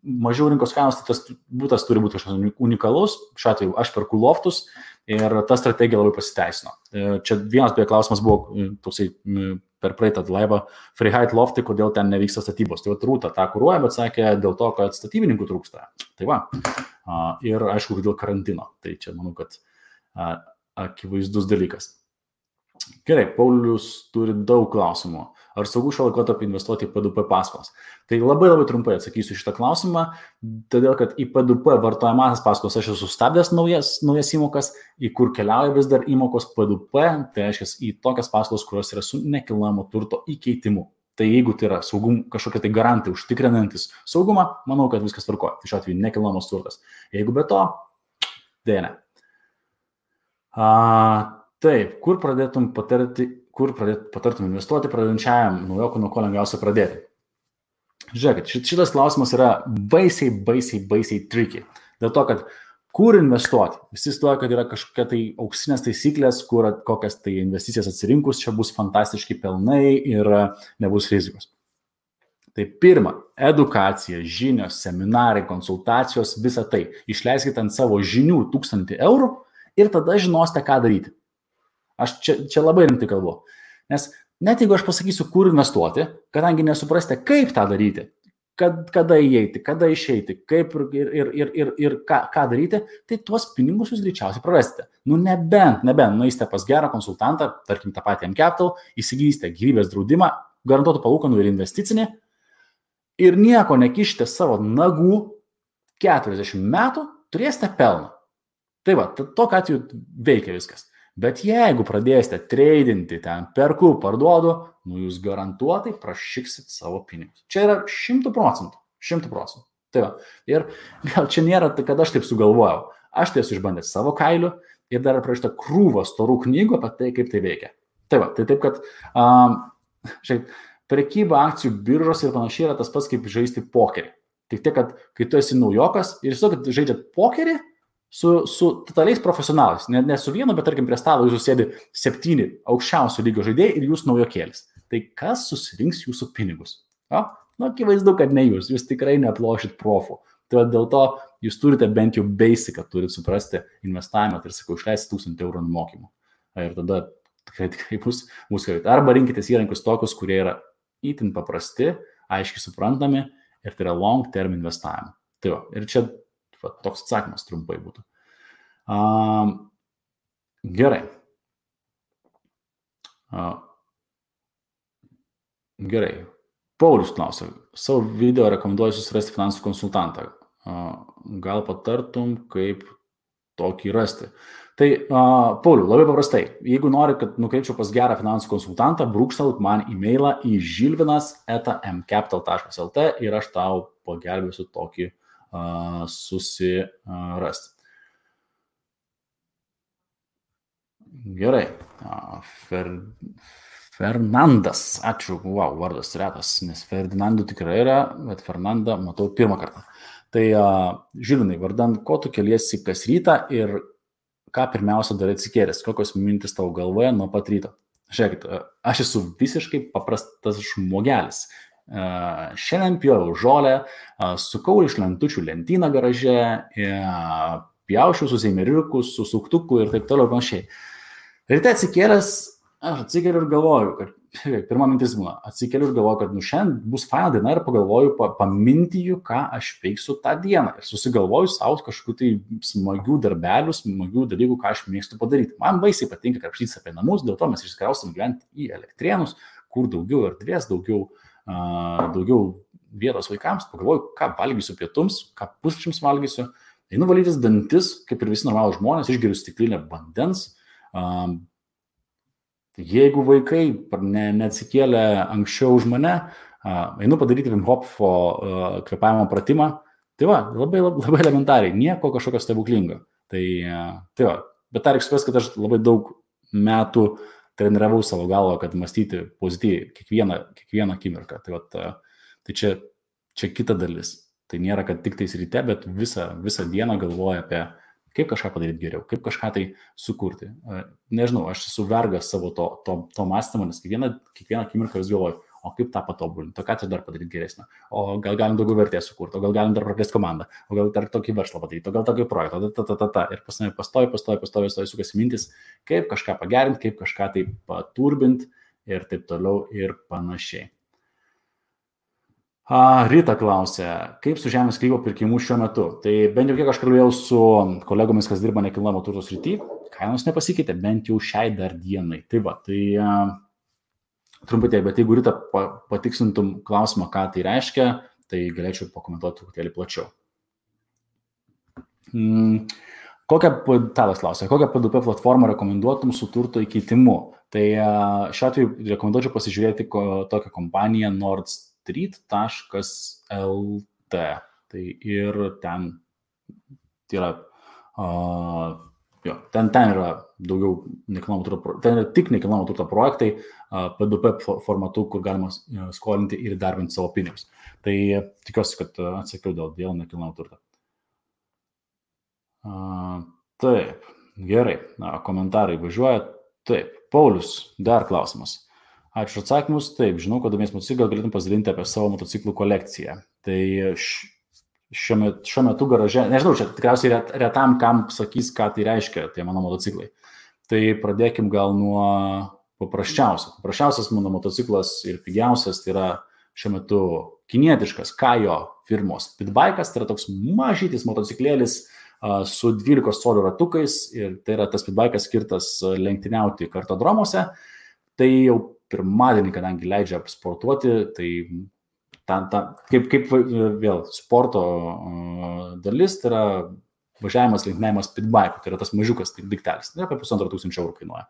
mažiau rinkos kainos, tai tas būtas turi būti kažkas unikalus, šiuo atveju aš perku loftus ir ta strategija labai pasiteisino. Čia vienas beje klausimas buvo toksai per praeitą laivą Freeheight loftai, kodėl ten nevyksta statybos. Tai Rūta tą kuruoja, bet sakė dėl to, kad statybininkų trūksta. Tai ir aišku, dėl karantino. Tai čia manau, kad akivaizdus dalykas. Gerai, Paulius turi daug klausimų. Ar saugu šio laikotarpį investuoti į P2P paskolas? Tai labai trumpai atsakysiu šitą klausimą, todėl kad į P2P vartojamasias paskolas aš esu sustabdęs naujas įmokas, į kur keliauja vis dar įmokos P2P, tai reiškia į tokias paskolas, kurios yra su nekilnojamo turto įkeitimu. Tai jeigu tai yra kažkokie tai garantai užtikrinantis saugumą, manau, kad viskas tvarkoja. Tai šiuo atveju nekilnojamas turtas. Jeigu be to, dėja ne. Taip, kur patartum investuoti pradedančiajam naujokui, nuo ko lengviausia pradėti? Žiūrėkit, šitas klausimas yra baisiai tricky. Dėl to, kad kur investuoti? Visi stoja, kad yra kažkokia tai auksinės taisyklės, kur kokias tai investicijas atsirinkus, čia bus fantastiški pelnai ir nebus rizikos. Tai pirma, edukacija, žinios, seminarai, konsultacijos, visa tai. Išleiskite ant savo žinių 1000 eurų ir tada žinosite, ką daryti. Aš čia labai rimtai kalbu. Nes net jeigu aš pasakysiu, kur investuoti, kadangi nesuprasite, kaip tą daryti, kada įeiti, kada išeiti, kaip ir ką daryti, tai tuos pinigus jūs greičiausiai prarasite. Nebent nueisite pas gerą konsultantą, tarkim tą patį mCapital, įsigysite gyvybės draudimą, garantuotų palūkanų ir investicinį ir nieko nekišite savo nagų 40 metų, turėsite pelną. Tai va, tokiu atveju veikia viskas. Bet jeigu pradėsite tradinti ten, perku, parduodu, jūs garantuotai prašyksit savo pinigus. Čia yra 100%. 100%. Tai va. Ir gal čia nėra, kad aš taip sugalvojau. Aš tai esu išbandęs savo kailiu ir dar prašyta krūvą storų knygų apie tai, kaip tai veikia. Tai va, tai taip, kad prekyba akcijų biržos ir panašiai yra tas pats, kaip žaisti pokerį. Tik tiek, kad kai tu esi naujokas ir jūs kad žaidžiat pokerį, su totaliais profesionalais, ne su vienu, bet tarkim prie stalo jūsų sėdi 7 aukščiausio lygio žaidėjai ir jūs naujokėlis. Tai kas susirinks jūsų pinigus? Akivaizdu, kad ne jūs tikrai neaplošit profų. Tai dėl to jūs turite bent jau basicą, turite suprasti investavimą, tai sakau, išleisti 1000 eurų mokymų. Ir tada tikrai bus gerai. Arba rinkitės įrankius tokius, kurie yra itin paprasti, aiškiai suprantami ir tai yra long term investavimą. Tai va, ir čia toks atsakymas trumpai būtų. Gerai. Gerai. Paulius klausia, savo video rekomenduoju susirasti finansų konsultantą. Gal patartum, kaip tokį rasti? Tai, Pauliu, labai paprastai. Jeigu nori, kad nukreipčiau pas gerą finansų konsultantą, brūkštelk man e-mailą į žilvinas@mcapital.lt ir aš tau pagelbėsiu tokį susirasti. Gerai. Fernandas. Ačiū. Wow, vardas retas, nes Ferdinandų tikrai yra, bet Fernandą matau pirmą kartą. Tai, Žilvinai, vardan, ko tu keliesi kas rytą ir ką pirmiausia darai atsikėlęs? Kokios mintis tavo galvoje nuo pat ryto? Žiūrėkit, aš esu visiškai paprastas žmogelis. Šiandien pjoviau žolę, sukau iš lentučių lentyną garaže, pjaušiau su zeimeriuku, su suktuku ir taip toliau panašiai. Ryte atsikėlęs, aš atsikeliu ir galvoju, kad pirma mintis būna, atsikeliu ir galvoju, kad šiandien bus faina diena ir pagalvoju, pamintiju, ką aš veiksiu tą dieną. Ir susigalvoju savo kažkokių tai smagių darbelių, smagių dalykų, ką aš mėgstu padaryti. Man baisiai patinka krapštytis apie namus, dėl to mes išsikraustam gyventi į Elektrėnus, kur daugiau erdvės, daugiau vietos vaikams, pagalvoju, ką valgysiu pietums, ką pusryčiams valgysiu, einu valytis dantis, kaip ir visi normalūs žmonės, išgeriu stiklinę vandens. Jeigu vaikai neatsikėlė anksčiau už mane, einu padaryti Wim Hofo kvėpavimo pratimą, tai va, labai elementariai, nieko kažkokio stebuklingo. Tai va, bet tą reikia suprasti, kad aš labai daug metų treniravau savo galvą, kad mąstyti pozityviai kiekvieną akimirką. Tai čia kita dalis. Tai nėra, kad tik tais ryte, bet visą dieną galvoja apie kaip kažką padaryti geriau, kaip kažką tai sukurti. Nežinau, aš esu vergas savo to mąstymo, nes kiekvieną akimirką vis galvoju, o kaip tą patobulinti, o ką čia dar padaryti geresnio, o gal galim daugiau vertės sukurti, o gal galim dar praplėsti komandą, o gal dar tokį verslą padaryti, o gal tokį projektą, ir pastovi sukasi mintis, kaip kažką pagerinti, kaip kažką tai paturbinti ir taip toliau ir panašiai. Rita klausė, kaip su žemės sklypo pirkimu šiuo metu. Tai bent jau kiek aš kalbėjau su kolegomis, kas dirba nekilnojamo turto srity, kainos nepasikeitė, bent jau šiai dar dienai. Tai va, tai trumpai tiek, bet jeigu Rita patikslintum klausimą, ką tai reiškia, tai galėčiau pakomentuoti truputėlį plačiau. Tadas klausė, kokią P2P platformą rekomenduotum su turto įkeitimu? Tai šiuo atveju rekomenduočiau pasižiūrėti tokią kompaniją Nordstreet.lt. Tai ir ten yra, ten yra daugiau nekilnojamo turto, ten yra tik nekilnojamo turto projektai P2P formatu, kur galima skolinti ir darbinti savo pinigus. Tai tikiuosi, kad atsakiau dėl nekilnojamo turto. Taip, gerai, komentarai važiuoja. Taip, Paulius, dar klausimas. Ačiū atsakymus. Taip, žinau, kad domies motociklą, gal galėtum pasidalinti apie savo motociklų kolekciją. Tai šiuo metu garaže, nežinau, čia tikriausiai retam, kam sakys, ką tai reiškia, tie mano motociklai. Tai pradėkim gal nuo paprasčiausio. Paprasčiausias mano motociklas ir pigiausias tai yra šiuo metu kinietiškas Kajo firmos Pitbike'as, tai yra toks mažytis motociklėlis su 12 colių ratukais ir tai yra tas Pitbike'as skirtas lenktyniauti kartodromuose. Tai jau pirmadienį, kadangi leidžia sportuoti, tai kaip vėl sporto dalis, tai yra važiavimas lenktyniavimas Pitbike'u, tai yra tas mažiukas tai daiktelis, tai apie 1500 eurų kainuoja.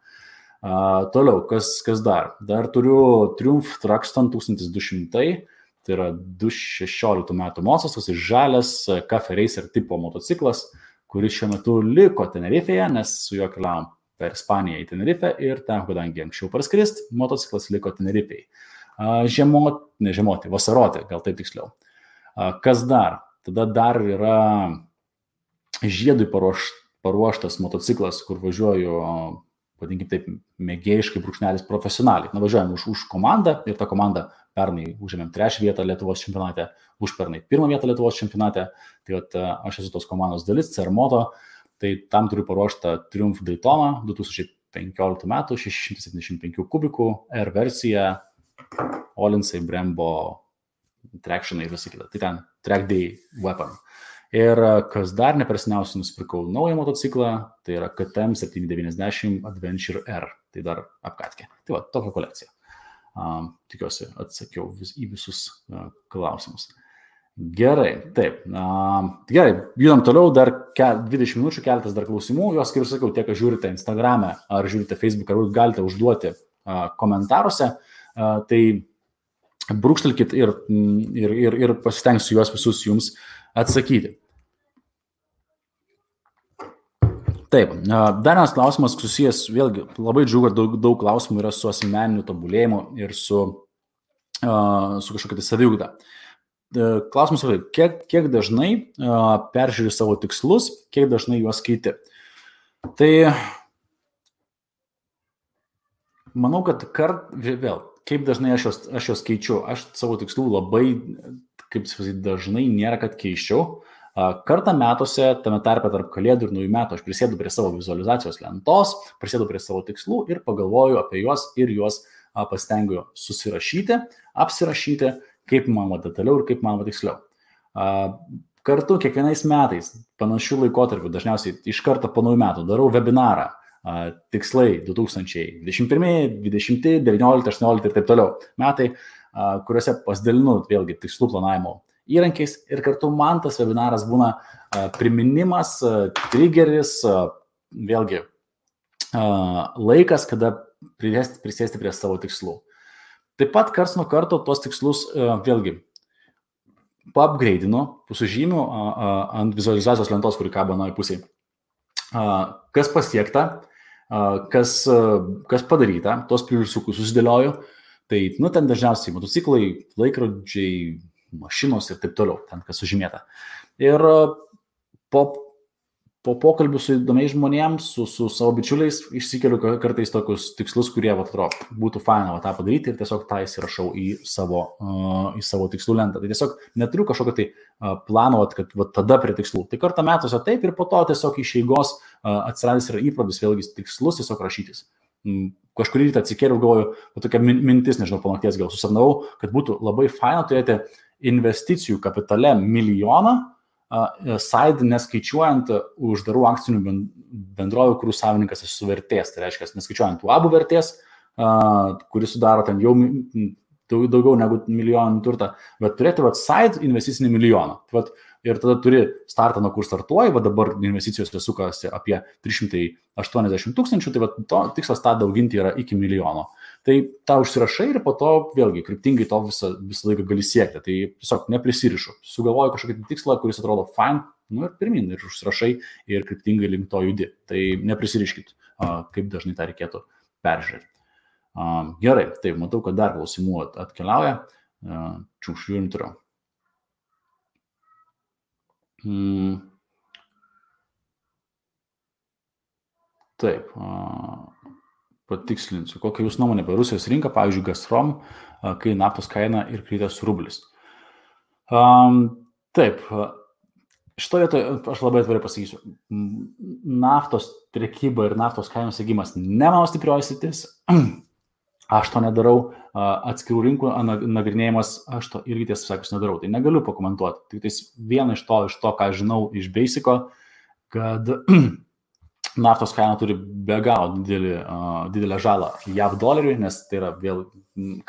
Toliau, kas dar? Dar turiu Triumph Truxton 1200, tai yra 2016 metų modelis, tas žalias Cafe Racer tipo motociklas, kuris šiuo metu liko Tenerifeje, nes su juo keliavom per Ispaniją į Tenerife ir ten, kadangi anksčiau parskrist, motociklas liko Tenerifei. Vasaroti, gal taip tiksliau. Kas dar? Tada dar yra žiedui paruoštas motociklas, kur važiuoju, vadinkim taip, mėgėjiškai brūkšnelis profesionaliai. Važiuojam už komandą ir tą komandą pernai užėmėm 3 vietą Lietuvos čempionate, užpernai 1 vietą Lietuvos čempionate. Tai aš esu tos komandos dalis, CR Moto. Tai tam turiu paruoštą Triumph Daytona 2015 metų, 675 kubikų, R versija, Olinsai, Brembo, Tractionai ir visi kita. Tai ten Track Day Weapon. Ir kas dar neperseniausiai nusipirkau naują motociklą, tai yra KTM 790 Adventure R. Tai dar apkatkė. Tai va, tokia kolekcija. Tikiuosi atsakiau į visus klausimus. Gerai, taip. Gerai, judam toliau, dar 20 minučių, keletas dar klausimų. Jos, kaip sakiau, tiek, kad žiūrite Instagram'e ar žiūrite Facebook'e, ar galite užduoti komentaruose. Tai brūkštelkit ir pasistengsiu juos visus jums atsakyti. Taip, dar vienas klausimas susijęs, vėlgi, labai džiugu, kad daug klausimų yra su asmeniniu tobulėjimu ir su kažkokia tai saviugda. Klausimas yra, kiek dažnai peržiūri savo tikslus, kiek dažnai juos keiti. Tai manau, kad vėl, kaip dažnai aš juos keičiu. Aš savo tikslų labai, kaip sakyti, dažnai nėra, kad keiščiau. Kartą metuose, tame tarpe tarp kalėdų ir naujų metų, aš prisėdu prie savo vizualizacijos lentos, prisėdu prie savo tikslų ir pagalvoju apie juos ir juos pasistengiu susirašyti, apsirašyti, kaip man detaliau ir kaip man tiksliau. Kartu kiekvienais metais, panašių laikotarpių, dažniausiai iš karto po naujų metų, darau webinarą, tikslai 2021, 2020, 19, 18 ir taip toliau metai, kuriuose pasidalinu vėlgi tikslų planavimo įrankiais ir kartu man tas webinaras būna priminimas, triggeris, vėlgi laikas, kada prisėsti prie savo tikslų. Taip pat karts nuo karto tos tikslus vėlgi paupgradeinu, sužymiu ant vizualizacijos lentos, kuri kabo anoje pusėje. Kas pasiekta, kas padaryta, tos pliusiukus susidėlioju. Tai, ten dažniausiai motociklai, laikrodžiai, mašinos ir taip toliau, ten kas sužymėta. Ir po pokalbių su įdomiais žmonėms, su savo bičiuliais, išsikeliu kartais tokius tikslus, kurie būtų faina tą padaryti ir tiesiog tą įsirašau į savo tikslų lentą. Tai tiesiog neturiu kažkokio tai plano, kad tada prie tikslų. Tai kartą metuose taip ir po to tiesiog iš eigos atsiradęs yra įprotys vėlgi tikslus tiesiog rašytis. Kažkurį rytą atsikėliau, galvoju, tokia mintis, nežinau, po nakties gal susapnavau, kad būtų labai faina turėti investicijų kapitale 1 milijoną, side neskaičiuojant uždarų akcinių bendrovių, kurių savininkas esu vertės. Tai reiškia, neskaičiuojant UABų vertės, kuris sudaro ten jau daugiau negu 1 milijoną turtą, bet turėti side investicinį 1 milijoną. Ir tada turi startą, nuo kur startuoji, dabar investicijos sukasi apie 380 000, tai to tikslas tą dauginti yra iki 1 milijono. Tai tą užsirašai ir po to vėlgi kryptingai to visą laiką gali siekti. Tai tiesiog neprisirišu. Sugalvoju kažkokį tikslą, kuris atrodo fine, ir pirmin, ir užsirašai ir kryptingai link to judi. Tai neprisiriškit, kaip dažnai tą reikėtų peržiūrėti. Gerai, taip, matau, kad dar klausimų atkeliauja. Žiūrim turiu. Taip, patikslinsiu, kokia jūs nuomonė apie Rusijos rinką, pavyzdžiui, Gazprom, kai naftos kaina ir kritęs rublis. Taip, šitoje vietoje aš labai atvirai pasakysiu, naftos prekyba ir naftos kainos segimas ne mano stiprioji sritis, aš to nedarau, atskirų rinkų nagrinėjimas, aš to irgi tiesą sakius nedarau, tai negaliu pakomentuoti. Tik tais viena iš to, ką žinau iš Basico, kad naftos kaina turi be galo didelę žalą JAV doleriui, nes tai yra vėl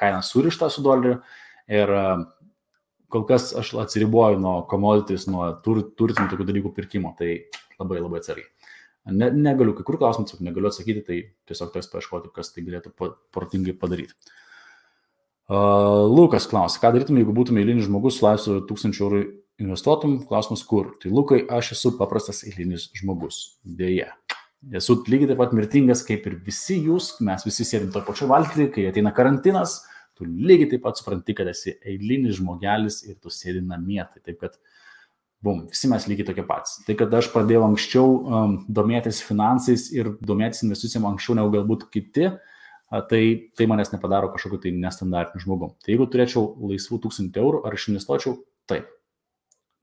kaina surišta su doleriu ir kol kas aš atsiriboju nuo commodities, nuo turtinių tokių dalykų pirkimo, tai labai labai atsargiai. Negaliu, kai kur klausimus negaliu atsakyti, tai tiesiog teks paieškoti, kas tai galėtų protingai padaryti. Lukas klausia, ką darytum, jeigu būtume eilinis žmogus, su laisvu 1000 eurų investuotum, klausimas kur. Tai Lukai, aš esu paprastas eilinis žmogus, dėja. Esu lygiai taip pat mirtingas, kaip ir visi jūs, mes visi sėdim to pačio valgyti, kai ateina karantinas, tu lygiai taip pat supranti, kad esi eilinis žmogelis ir tu sėdi namie. Tai taip, kad visi mes lygiai tokie patys. Tai, kad aš pradėjau anksčiau domėtis finansais ir domėtis investicijom anksčiau negu galbūt kiti, tai manęs nepadaro kažkokiu tai nestandartiniu žmogum. Tai jeigu turėčiau laisvų 1000 eurų, ar aš investuočiau? Taip.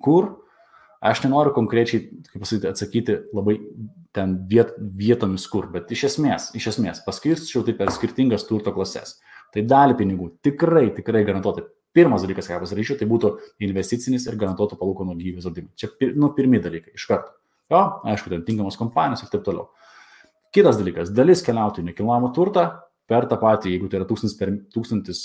Kur? Aš nenoriu konkrečiai, kaip pasakyti, atsakyti labai ten vietomis kur, bet iš esmės paskirčiau tai per skirtingas turto klases. Tai dalį pinigų tikrai garantuotai. Pirmas dalykas, ką pasiryšiu, tai būtų investicinis ir garantuotų palūkanų gyvybės draudimai. Čia pirmi dalykai iš karto. Jo, aišku, ten tinkamos kompanijos ir taip toliau. Kitas dalykas, dalis keliautų į nekilnojamą turtą per tą patį, jeigu tai yra 1000,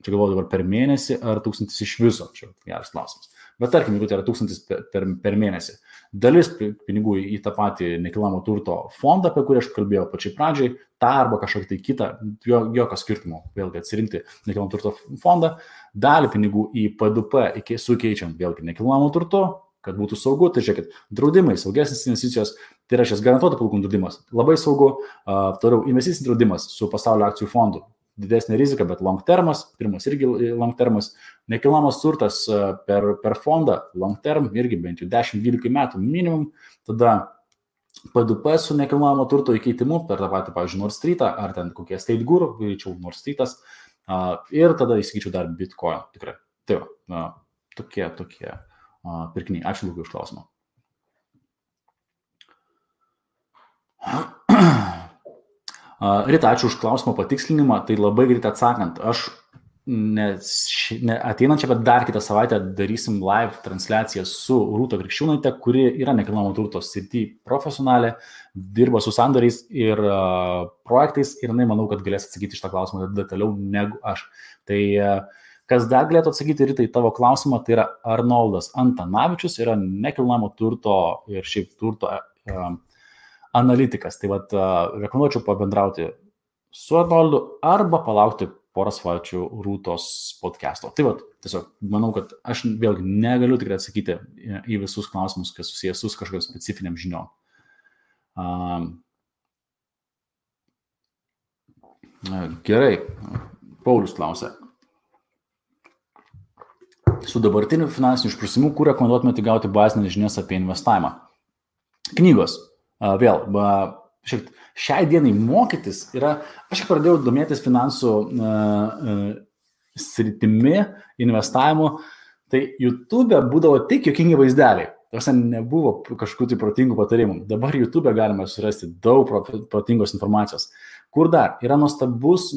čia galvoju dabar per mėnesį ar 1000 iš viso, čia geras klausimas. Bet tarkim, jeigu tai yra 1000 per mėnesį, dalis pinigų į tą patį nekilnojamo turto fondą, apie kurį aš kalbėjau pačiai pradžiai, tą arba kažkokį tai kitą, jokio skirtumo, vėlgi atsirinkti nekilnojamo turto fondą, dalį pinigų į P2P sukeičiant vėlgi nekilnojamo turto, kad būtų saugu, tai žiūrėkit, draudimai, saugesnės investicijos, tai yra šis garantuotų palūkanų draudimas, labai saugu, toliau investicinis draudimas su pasaulio akcijų fondu. Didesnė rizika, bet long termas, pirmas irgi long termas, nekilnojamas turtas per fondą, long term, irgi bent jau 10-12 metų minimum, tada P2P su nekilnojamo turto įkeitimu per tą patį, pavyzdžiui, Nord Streetą, ar ten kokie State Guru, greičiau Nord Streetas, ir tada įsigyčiau dar Bitcoin, tikrai. Tai va, tokie pirkiniai. Ačiū Lukai už klausimą. Rita, ačiū už klausimą patikslinimą, tai labai greit atsakant, aš ateinančią, bet dar kitą savaitę darysim live transliaciją su Rūta Krikščiūnaite, kuri yra nekilnojamo turto srity profesionalė, dirba su sandoriais ir projektais ir jinai manau, kad galės atsakyti šitą klausimą detaliau negu aš. Tai kas dar galėtų atsakyti Rita į tavo klausimą, tai yra Arnoldas Antanavičius, yra nekilnojamo turto ir šiaip turto analitikas. Tai vat rekomenduočiau pabendrauti su Arnoldu arba palaukti porą savaičių Rūtos podcast'o. Tai vat, tiesiog manau, kad aš vėlgi negaliu tikrai atsakyti į visus klausimus, kas susijęs su kažkokiam specifiniam žiniom. Gerai, Paulius klausia. Su dabartiniu finansiniu išprusimu, kur rekomenduotumėte gauti bazinės žinias apie investavimą? Knygos. Vėl, šiai dienai mokytis yra, aš pradėjau domėtis finansų sritimi, investavimu, tai YouTube būdavo tik juokingi vaizdeliai. Tarsi nebuvo kažkokių tai protingų patarimų. Dabar YouTube galima surasti daug protingos informacijos. Kur dar? Yra nuostabus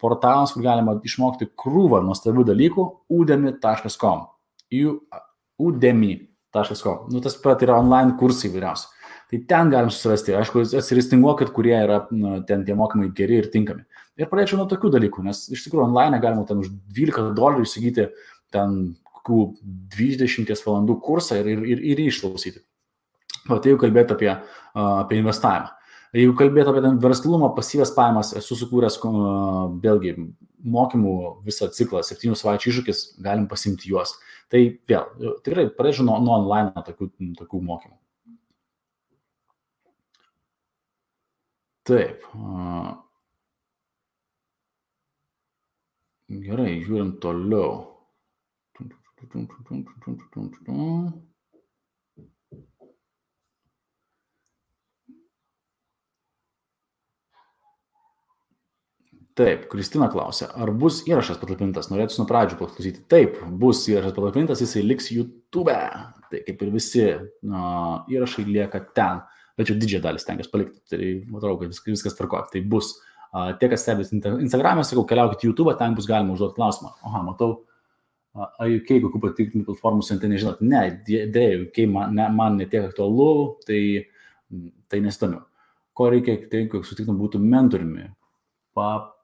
portalas, kur galima išmokti krūvą nuostabių dalykų, udemy.com. Udemy.com. Tas pat yra online kursai įvairiausi. Tai ten galim susirasti. Aišku, atsiristinguokit, kurie yra ten tie mokymai geri ir tinkami. Ir pradėčiau nuo tokių dalykų, nes iš tikrųjų online galima ten už $12 įsigyti ten 20 valandų kursą ir išklausyti. O tai jau kalbėti apie investavimą. Jeigu kalbėti apie verslumą, pasyvias pajamas, esu sukūręs vėlgi mokymų visą ciklą, 7 savaičių iššūkis, galim pasimti juos. Tai vėl, tikrai pradėčiau nuo online tokių mokymų. Taip. Gerai, žiūrim toliau. Taip, Kristina klausia, ar bus įrašas patalpintas? Norėtųsi nuo pradžių paklausyti. Taip, bus įrašas patalpintas, jisai liks YouTube. Tai kaip ir visi įrašai lieka ten. Bet jau didžiąją dalį stengiuosi palikti. Tai matau, kad viskas tvarko. Tai bus. Tie, kas stebės Instagram'e, sakau, keliaukite YouTube, ten bus galima užduoti klausimą. Aha, matau, UK, kokių patikrintų platformų siuntė, nežinot. Ne, dėja, UK man netiek aktualu, tai nesidomiu. Ko reikia, tai sutiktum būtų mentoriumi.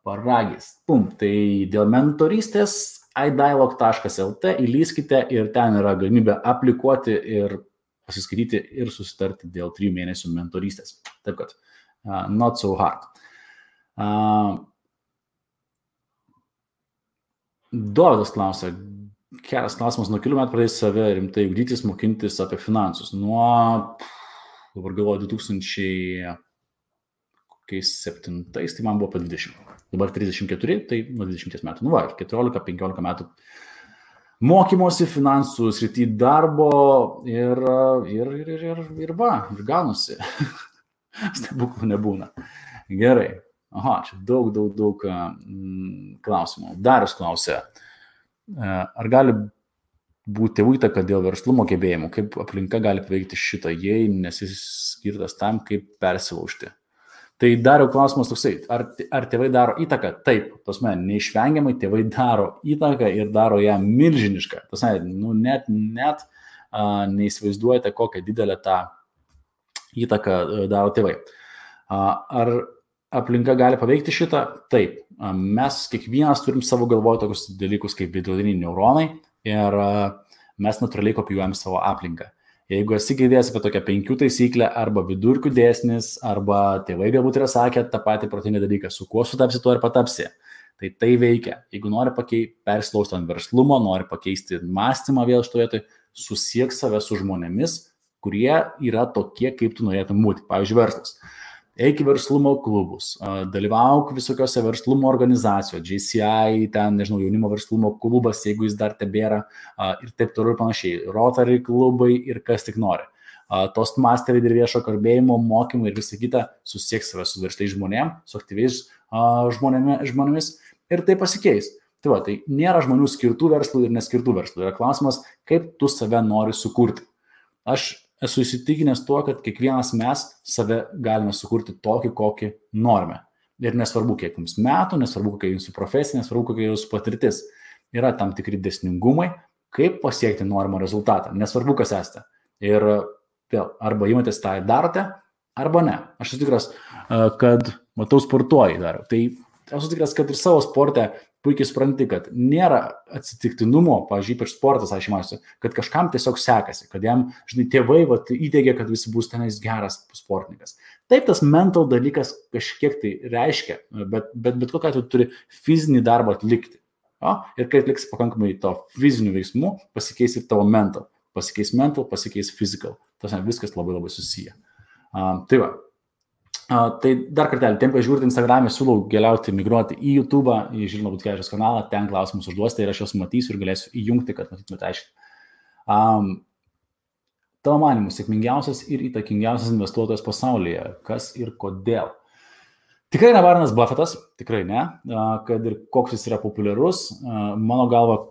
Paragis. Pum, tai dėl mentorystės idialog.lt įlyskite ir ten yra galimybė aplikuoti ir pasiskaityti ir susitarti dėl 3 mėnesių mentorystės. Taip kad, not so hard. Dovydas klausia, geras klausimas, nuo kelių metų pradėjai save rimtai ugdytis, mokintis apie finansus. Nuo, dabar galvoju, 2007, tai man buvo po 20. Dabar 34, tai nuo 20 metų. Nu va, 14-15 metų mokymosi finansų srity darbo ir gaunasi. Stebuklų nebūna. Gerai. Aha, čia daug klausimų. Darius klausia, ar gali būti tėvų įtaka dėl verslumo gebėjimų, kaip aplinka gali paveikti šitą, jei nesi skirtas tam, kaip persilaužti. Tai Dariau klausimas toksai, ar tėvai daro įtaką? Taip, tasme, neišvengiamai tėvai daro įtaką ir daro ją milžinišką. Tasme, net neįsivaizduojate, kokią didelę tą įtaką daro tėvai. Ar aplinka gali paveikti šitą? Taip. Mes kiekvienas turim savo galvoje tokius dalykus kaip veidrodiniai neuronai ir mes natūraliai kopijuojam savo aplinką. Jeigu esi girdėjęs apie tokią 5 taisyklę arba vidurkių dėsnis, arba tėvai galbūt yra sakę tą patį protingą dalyką, su kuo sutapsi, tuo ir patapsi. Tai veikia. Jeigu nori persilaužti ant verslumo, nori pakeisti mąstymą vėl šitoje vietoje, susiek save su žmonėmis, kurie yra tokie, kaip tu norėtum būti. Pavyzdžiui, verslas. Eik į verslumo klubus, dalyvauk visokiose verslumo organizacijos, JCI, ten, nežinau, jaunimo verslumo klubas, jeigu jis dar tebėra, ir taip toliau ir panašiai, Rotary klubai ir kas tik nori. Toastmasteriai ir viešo kalbėjimo mokymai ir visa kita, susiek save su versliais žmonėmis, su aktyviais žmonėmis ir tai pasikeis. Tai va, tai nėra žmonių skirtų verslų ir neskirtų verslų. Yra klausimas, kaip tu save nori sukurti. Aš esu įsitikinęs tuo, kad kiekvienas mes save galime sukurti tokį, kokį norime. Ir nesvarbu, kiek jums metų, nesvarbu, kokia jūsų profesija, nesvarbu, kokia jūsų patirtis. Yra tam tikri dėsningumai, kaip pasiekti norimą rezultatą. Nesvarbu, kas esate. Ir vėl, arba įmatės tą darote, arba ne. Aš esu tikras, kad matau sportuoji dar. Tai esu tikras, kad ir savo sporte puikiai supranti, kad nėra atsitiktinumo, pavyzdžiui, ypač sportas, aš įmasiu, kad kažkam tiesiog sekasi, kad jam, žinai, tėvai įteigia, kad visi bus tenais geras sportininkas. Taip, tas mental dalykas kažkiek tai reiškia, bet kokiu atveju turi fizinį darbą atlikti. Ir kai atliks pakankamai to fizinių veiksmų, pasikeis ir tavo mental. Pasikeis mental, pasikeis physical. Tas viskas labai labai susiję. Tai va. Tai dar kartelį, tiem, kai žiūrite Instagram'e, siūlau migruoti į YouTube, į Žilvino Butkevičiaus kanalą, ten klausimus užduosite ir aš juos matysiu ir galėsiu įjungti, kad matytumėte aiškiai. Tavo manymu, sėkmingiausias ir įtakingiausias investuotojas pasaulyje, kas ir kodėl? Tikrai ne Warrenas Buffettas, tikrai ne, kad ir koks jis yra populiarus, mano galva,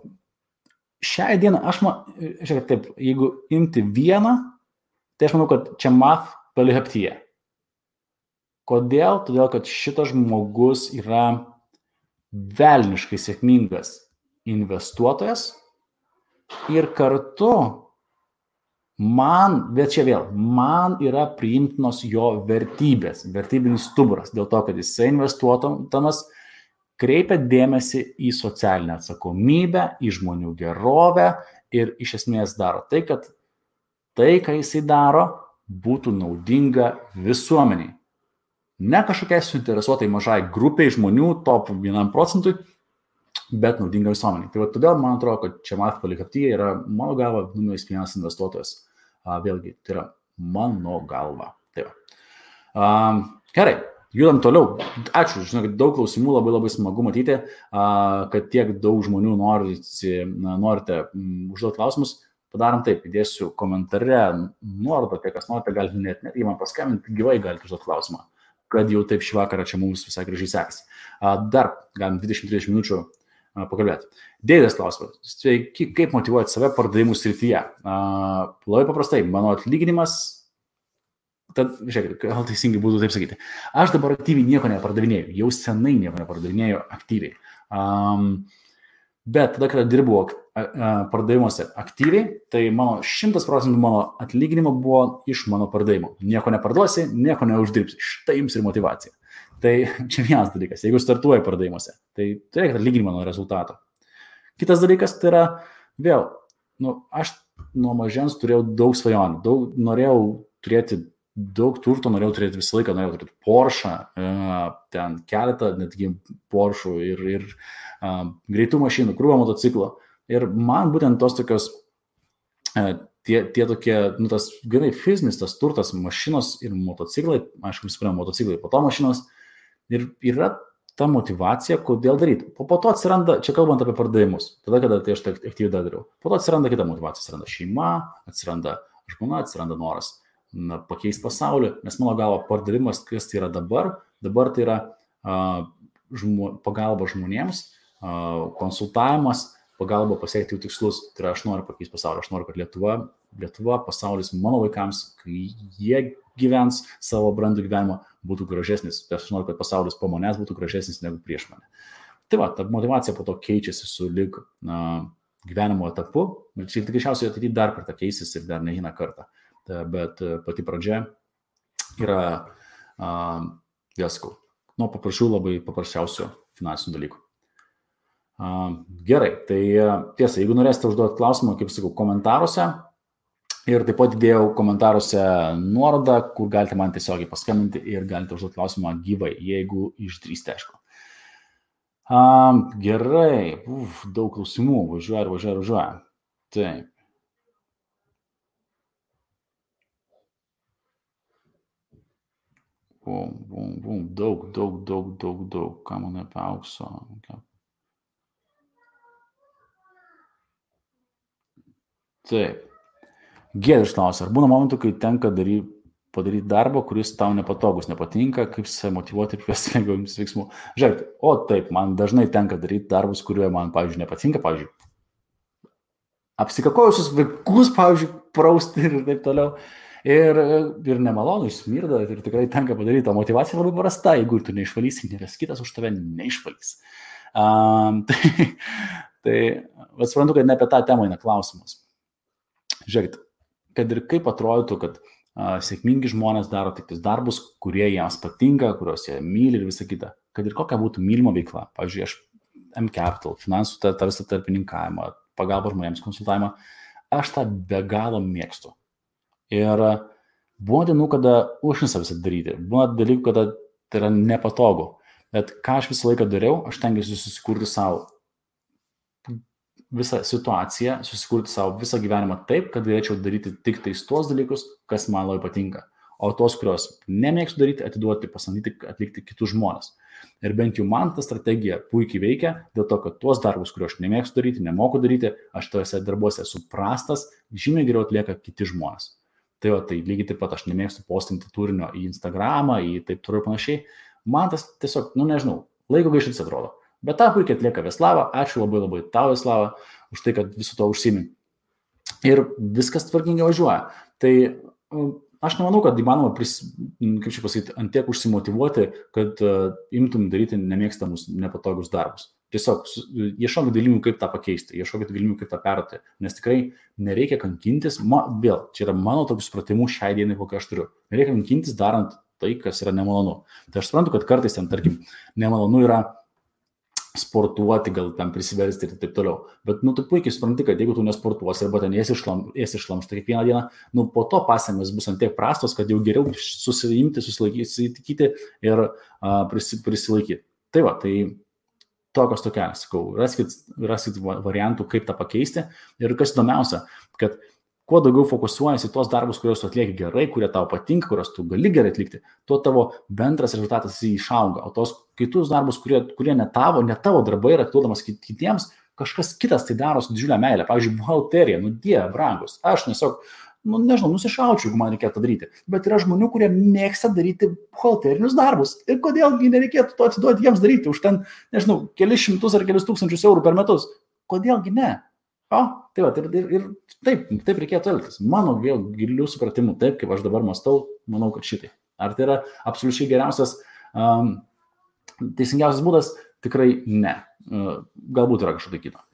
šią dieną, žiūrėk taip, jeigu imti vieną, tai aš manau, kad Chamath Palihapitiya. Kodėl? Todėl, kad šitas žmogus yra velniškai sėkmingas investuotojas ir kartu man yra priimtinos jo vertybės, vertybinis stuburas, dėl to, kad jisai investuotomas kreipia dėmesį į socialinę atsakomybę, į žmonių gerovę ir iš esmės daro tai, kad tai, ką jisai daro, būtų naudinga visuomeniai. Ne kažkokiai suinteresuotai mažai grupiai žmonių, top 1%, bet naudinga visuomeniai. Tai va, todėl man atrodo, kad Chamath Palihapitiya yra mano galva numeris 1 investuotojas. Vėlgi, tai yra mano galva. Tai va. Gerai, judam toliau. Ačiū, žinau, kad daug klausimų, labai labai smagu matyti, kad tiek daug žmonių norite užduoti klausimus. Padarom taip, įdėsiu komentare nuorodą, tie, kas norite, galite net man paskambinti, gyvai galite užduoti klausimą. kad jau taip šį vakarą čia mums visai gražiai sekasi. Dar galim 20-30 minučių pakalbėti. Deividas klausimas. Sveiki, kaip motyvuoti save pardavimų srityje? Labai paprastai, mano atlyginimas, tad, žiūrėkit, gal teisingai būtų taip sakyti. Aš dabar aktyviai nieko nepardavinėjau, jau senai nieko nepardavinėjau aktyviai. Bet tada, kada dirbu pardavimuose aktyviai, tai mano 100% mano atlyginimo buvo iš mano pardavimo. Nieko neparduosi, nieko neuždirbsi. Štai jums ir motyvacija. Tai čia vienas dalykas, jeigu startuoji pardavimuose, tai turėk atlyginimą nuo rezultato. Kitas dalykas tai yra, vėl, aš nuo mažens turėjau daug svajonių, norėjau turėti daug turto, norėjau turėti visą laiką, norėjau turėti Porsche, ten keletą, netgi Porsche ir greitų mašinų, krūvą motociklo. Ir man būtent tos tokios, tie tokie, tas gerai fizinis, tas turtas, mašinos ir motociklai, aišku, visų pirma, motociklai, po to mašinos, ir yra ta motyvacija, kodėl daryti. Po to atsiranda, čia kalbant apie pardavimus, tada, kada tai aš tai aktyviai dariau, po to atsiranda kita motyvacija, atsiranda šeima, atsiranda žmona, atsiranda noras pakeisti pasaulį, nes mano galva pardavimas, kas tai yra dabar tai yra pagalba žmonėms, konsultavimas, pagalba pasiekti jų tikslus. Tai yra, aš noriu pakeisti pasaulį, aš noriu, kad Lietuva, pasaulis mano vaikams, kai jie gyvens savo brandų gyvenimą, būtų gražesnis. Tai aš noriu, kad pasaulis po manęs būtų gražesnis negu prieš mane. Tai va, ta motyvacija po to keičiasi su lyg gyvenimo etapu. Ir čia tikriausiai ateityje dar kartą keisis ir dar ne vieną kartą. Bet pati pradžia yra, vėl sakau, nuo labai paprasčiausių finansinių dalykų. Gerai, tai tiesa, jeigu norėsite užduoti klausimą, kaip sakau, komentaruose, ir taip pat įdėjau komentaruose nuorodą, kur galite man tiesiogiai paskambinti ir galite užduoti klausimą gyvai, jeigu išdrįsite, aišku. Gerai, daug klausimų, važiuoja. Taip. Daug, ką man apie aukso. Taip. Giedrius klausia, ar būna momentų, kai tenka padaryti darbą, kuris tau nepatogus, nepatinka, kaip save motyvuoti ir kvesti lengviausius veiksmų? Žiūrėk, taip, man dažnai tenka daryti darbus, kurie man, pavyzdžiui, nepatinka, pavyzdžiui, apsikakojusius vaikus, pavyzdžiui, prausti ir taip toliau. Ir nemalonu, išsmirda ir tikrai tenka padaryti. O motyvacija labai prasta, jeigu tu neišvalysi, niekas kitas už tave neišvalys. Tai suprantu, kad ne apie tą temą eina klausimas. Žiūrėkit, kad ir kaip atrodytų, kad sėkmingi žmonės daro tik tais darbus, kurie jiems patinka, kuriuos jie myli ir visa kita. Kad ir kokia būtų mylima veikla. Pavyzdžiui, aš M-Capital, finansų tą visą tarpininkavimą, pagalbą žmonėms, konsultavimą, aš tą be galo mėgstu. Ir buvo dienų, kada užnisa visą daryti. Buvo dalykų, kada tai yra nepatogu. Bet ką aš visą laiką dariau, aš tengiausi susikurti savo visą situaciją, susikurti savo visą gyvenimą taip, kad galėčiau daryti tik tais tuos dalykus, kas man labai patinka. O tos, kurios nemėgstu daryti, atiduoti, pasamdyti, atlikti kitus žmonės. Ir bent jau man ta strategija puikiai veikia, dėl to, kad tuos darbus, kuriuos aš nemėgstu daryti, nemoku daryti, aš tuose darbuose esu prastas, žymiai geriau atlieka kiti žmonės. Tai lygiai taip pat aš nemėgstu postinti turinio į Instagramą, į taip toliau ir panašiai. Man tas tiesiog, nežinau, laiko gaištis atrodo. Bet tą puikiai atlieka Veslava. Ačiū labai tau, Veslava, už tai, kad visu to užsiimi. Ir viskas tvarkingai važiuoja. Tai aš nemanau, kad įmanoma, ant tiek užsimotyvuoti, kad imtum daryti nemėgstamus, nepatogus darbus. Tiesiog ieškokit galimybių, kaip tą pakeisti, ieškokit galimybių, kaip tą perduoti, nes tikrai nereikia kankintis, vėl, čia yra mano tokius supratimų šiai dienai, kokią aš turiu. Nereikia kankintis darant tai, kas yra nemalonu. Tai aš suprantu, kad kartais ten, tarkim, nemalonu yra sportuoti, gal ten prisiversti ir taip toliau. Bet, tu puikiai supranti, kad jeigu tu nesportuosi arba ten esi šlamšta kiekvieną dieną, po to pasekmės bus ant tiek prastos, kad jau geriau susiimti, susilaikyti ir prisilaikyti. Tai va, tai tokios tokelės, sakau, raskit variantų, kaip tą pakeisti. Ir kas įdomiausia, kad kuo daugiau fokusuojasi tos darbus, kuriuos tu atlieki gerai, kurie tau patinka, kuriuos tu gali gerai atlikti, tuo tavo bendras rezultatas išauga. O tos kitus darbus, kurie ne tavo darbai yra atiduodamas kitiems, kažkas kitas tai daro su didžiulė meilė. Pavyzdžiui, buhalterija, Dieve brangus. Aš tiesiog nežinau, nusišaučiau, jeigu man reikėtų daryti. Bet yra žmonių, kurie mėgsta daryti buhalterinius darbus. Ir kodėlgi nereikėtų to atiduoti jiems daryti už ten, nežinau, kelius šimtus ar kelius tūkstančius eurų per metus. Kodėlgi ne? O, tai va, ir taip reikėtų elgtis. Mano vėl gilių supratimų, taip kaip aš dabar mąstau, manau, kad šitai. Ar tai yra absoliučiai geriausias, teisingiausias būdas? Tikrai ne. Galbūt yra kažkokia kita.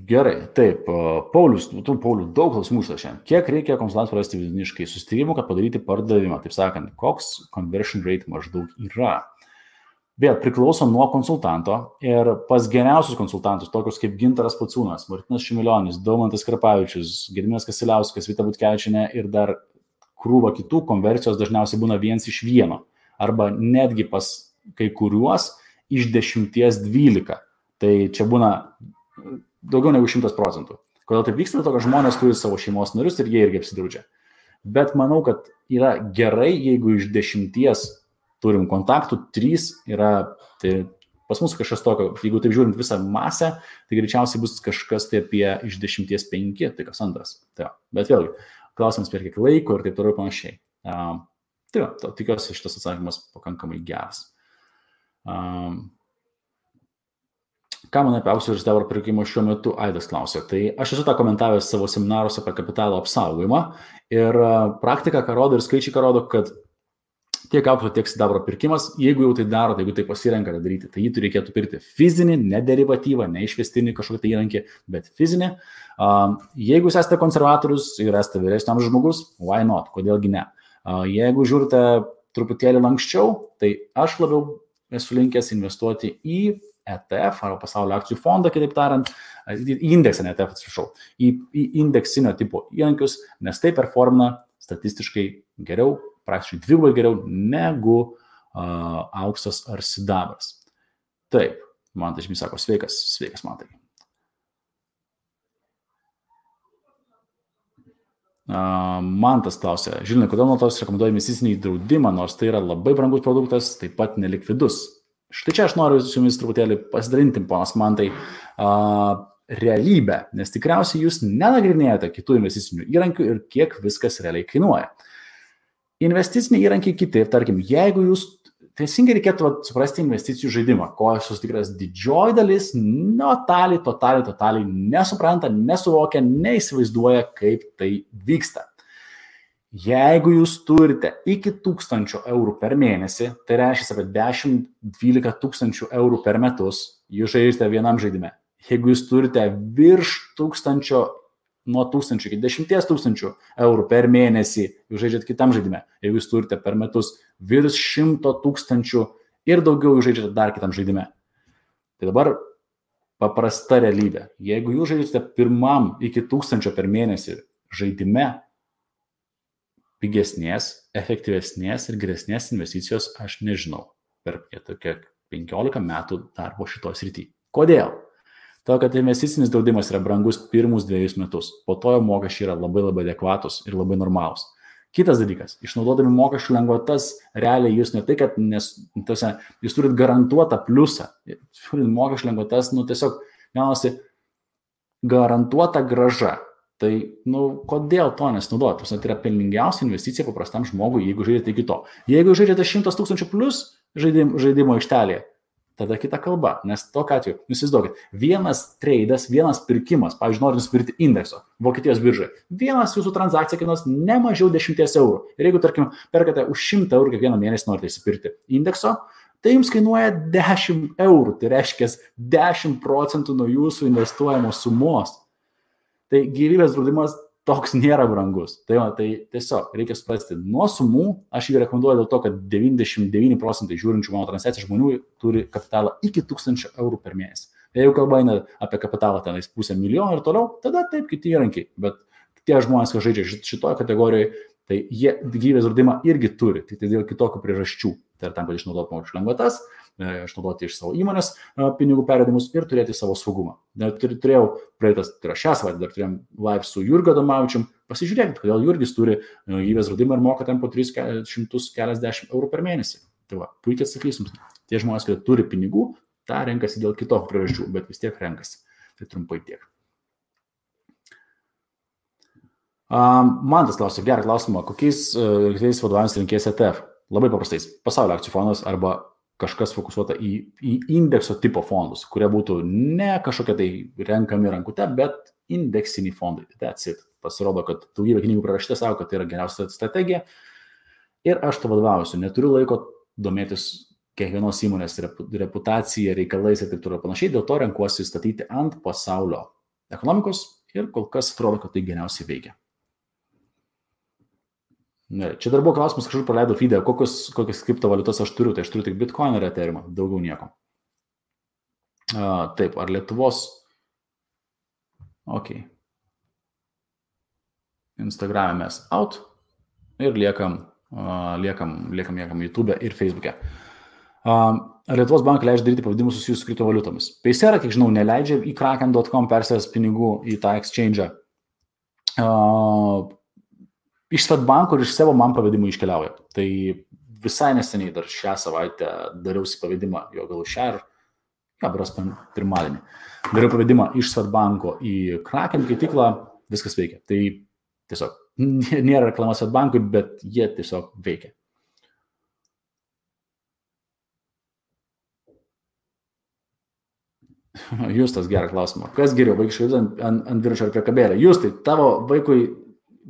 Gerai, taip, Paulius, Paulius, daug klausimų šiandien. Kiek reikia konsultantų rasti vidutiniškai susitarimų, kad padaryti pardavimą? Taip sakant, koks conversion rate maždaug yra? Vėl priklauso nuo konsultanto ir pas geriausius konsultantus, tokius kaip Gintaras Pociūnas, Martinas Šimilionis, Daumantas Karpavičius, Gediminas Kasiliauskas, Vita Butkevičienė ir dar krūva kitų, konversijos dažniausiai būna 1:1 arba netgi pas kai kuriuos iš 10-12. Tai čia būna daugiau negu 100%. Kodėl taip vyksta? Dėl to, kad žmonės turi savo šeimos narius ir jie irgi apsidraudžia. Bet manau, kad yra gerai, jeigu iš 10 turim kontaktų, 3 yra, tai pas mus kažkas tokio, jeigu taip žiūrint visą masę, tai greičiausiai bus kažkas tai apie iš 10 5, tai kas antras. Tai, bet vėlgi, klausimas per kiek laiko ir taip toliau panašiai. Tai tikiuosi šitas atsakymas pakankamai geras. Ką man apie aukso ir sidabro pirkimą šiuo metu, Aidas klausė. Tai aš esu tą komentavęs savo seminaruose apie kapitalo apsaugojimą ir praktika, ką rodo ir skaičiai, ką rodo, kad tiek aukso, tiek sidabro pirkimas, jeigu jau tai daro, tai jeigu tai pasirenka daryti, tai jį reikėtų pirkti fizinį, ne derivatyvą, ne išvestinį kažkokį tai įrankį, bet fizinį. Jeigu jūs esate konservatorius ir esate vyresnio amžiaus žmogus, why not, kodėlgi ne. Jeigu žiūrite truputėlį lanksčiau, tai aš labiau esu linkęs investuoti į ETF arba pasaulio akcijų fondą, kitaip tariant, į indeksą, ne ETF, atsiprašau, į indeksinio tipo įrankius, nes tai performina statistiškai geriau, praktiškai dvigubai geriau negu auksas ar sidabras. Taip, Mantas Žymys sako, sveikas Mantai. Mantas klausė, Žilinai, kodėl nuo tos rekomenduoja investicinį draudimą, nors tai yra labai brangus produktas, taip pat nelikvidus. Štai čia aš noriu su jumis truputėlį pasidalinti, ponas Mantai, realybę, nes tikriausiai jūs nenagrinėjate kitų investicinių įrankių ir kiek viskas realiai kainuoja. Investiciniai įrankiai kiti, tarkim, jeigu jūs teisingai reikėtų suprasti investicijų žaidimą, ko aš susitikras didžioji dalis totaliai nesupranta, nesuvokia, neįsivaizduoja, kaip tai vyksta. Jeigu jūs turite iki 1000 eurų per mėnesį, tai reiškia apie 10-12 tūkstančių eurų per metus, jūs žaidžiate vienam žaidime. Jeigu jūs turite virš 1000, nuo 1000 iki 10 000 eurų per mėnesį, jūs žaidžiate kitam žaidime. Jeigu jūs turite per metus virš 100 000 ir daugiau, jūs žaidžiate dar kitam žaidime. Tai dabar paprasta realybė. Jeigu jūs žaidžiate pirmam iki 1000 per mėnesį žaidime, pigesnės, efektyvesnės ir geresnės investicijos aš nežinau per tokią 15 metų darbo šitos srity. Kodėl? To, kad investicinis draudimas yra brangus pirmus 2 metus, po to jo mokesčiai yra labai adekvatus ir labai normalūs. Kitas dalykas, išnaudodami mokesčių lengvatas, realiai jūs ne tai, kad jūs turit garantuotą pliusą, turit mokesčių lengvatas, tiesiog gaunasi garantuota grąža. Tai, kodėl to nesinaudoti? Tai yra pelningiausia investicija paprastam žmogui, jeigu žaidžiate iki to. Jeigu žaidžiate 100 000 plus žaidimo aikštelėje, tada kita kalba, nes tokiu atveju, jūs įsivaizduokit, vienas treidas, vienas pirkimas, pavyzdžiui, norint nusipirkti indekso Vokietijos biržai, vienas jūsų transakcija kainuos ne mažiau 10 eurų. Ir jeigu, tarkim, perkate už 100 eurų kiekvieną mėnesį norite įsipirkti indekso, tai jums kainuoja 10 eurų, tai reiškia 10% nuo jūsų investuojamos sumos. Tai gyvybės draudimas toks nėra brangus. Tai tiesiog reikia suprasti, nuo sumų aš jį rekomenduoju dėl to, kad 99% žiūrinčių mano transliaciją žmonių turi kapitalą iki 1000 eurų per mėnesį. Jeigu kalba eina apie kapitalą tenais 500 000 ir toliau, tada taip kiti įrankiai. Bet tie žmonės, kas žaidžia šitoje kategorijoje, tai jie gyvybės draudimą irgi turi, tik tai dėl kitokių priežasčių. Tai yra tam, kad išnaudoti mokesčių lengvatas, išnaudoti iš savo įmonės pinigų pervedimus ir turėti savo saugumą. Turėjau šią savaitę, dar turėjom live su Jurgiu Adomavičium. Pasižiūrėkit, kodėl Jurgis turi gyvybės draudimą ir moka ten po 340 eurų per mėnesį. Tai va, puikiai atsakysim. Tie žmonės, kurie turi pinigų, tą renkasi dėl kitokių priežasčių, bet vis tiek renkasi. Tai trumpai tiek. Mantas klausia, gerą klausimą, kokiais aktyviais vadovavimas rinkės ETF? Labai paprastais, pasaulio akcijų fondas arba kažkas fokusuota į indekso tipo fondus, kurie būtų ne kažkokie tai renkami rankute, bet indeksiniai fondai. That's it. Pasirodo, kad daugybė knygų prirašyta savo, kad tai yra geriausia strategija. Ir aš to vadovausiu. Neturiu laiko domėtis kiekvienos įmonės reputacija, reikalais ir taip toliau panašiai. Dėl to renkuosi statyti ant pasaulio ekonomikos ir kol kas atrodo, kad tai geriausiai veikia. Čia dar buvo klausimas, kažkur praleidau feedą, kokias kriptovaliutas aš turiu. Tai aš turiu tik Bitcoin ir Ethereum, daugiau nieko. Taip, ar Lietuvos... Ok. Instagram'e mes out ir liekam YouTube ir Facebook'e. Ar Lietuvos bankai leidžia daryti pavadimus susijusius su kriptovaliutomis? Paysera, kiek žinau, neleidžia į kraken.com persės pinigų į tą exchange'ą. Iš Swedbanko ir iš savo man pavedimų iškeliauja. Tai visai neseniai dar šią savaitę dariausi pavedimą, jo gal šią ir pirmadienį. Dariau pavedimą iš Swedbanko į Kraken keityklą, viskas veikia. Tai tiesiog nėra reklama Swedbankui, bet jie tiesiog veikia. Justas, gerą klausimą. Kas geriau, vaikiškai ant dviračio ar priekabėlę? Justai, tavo vaikui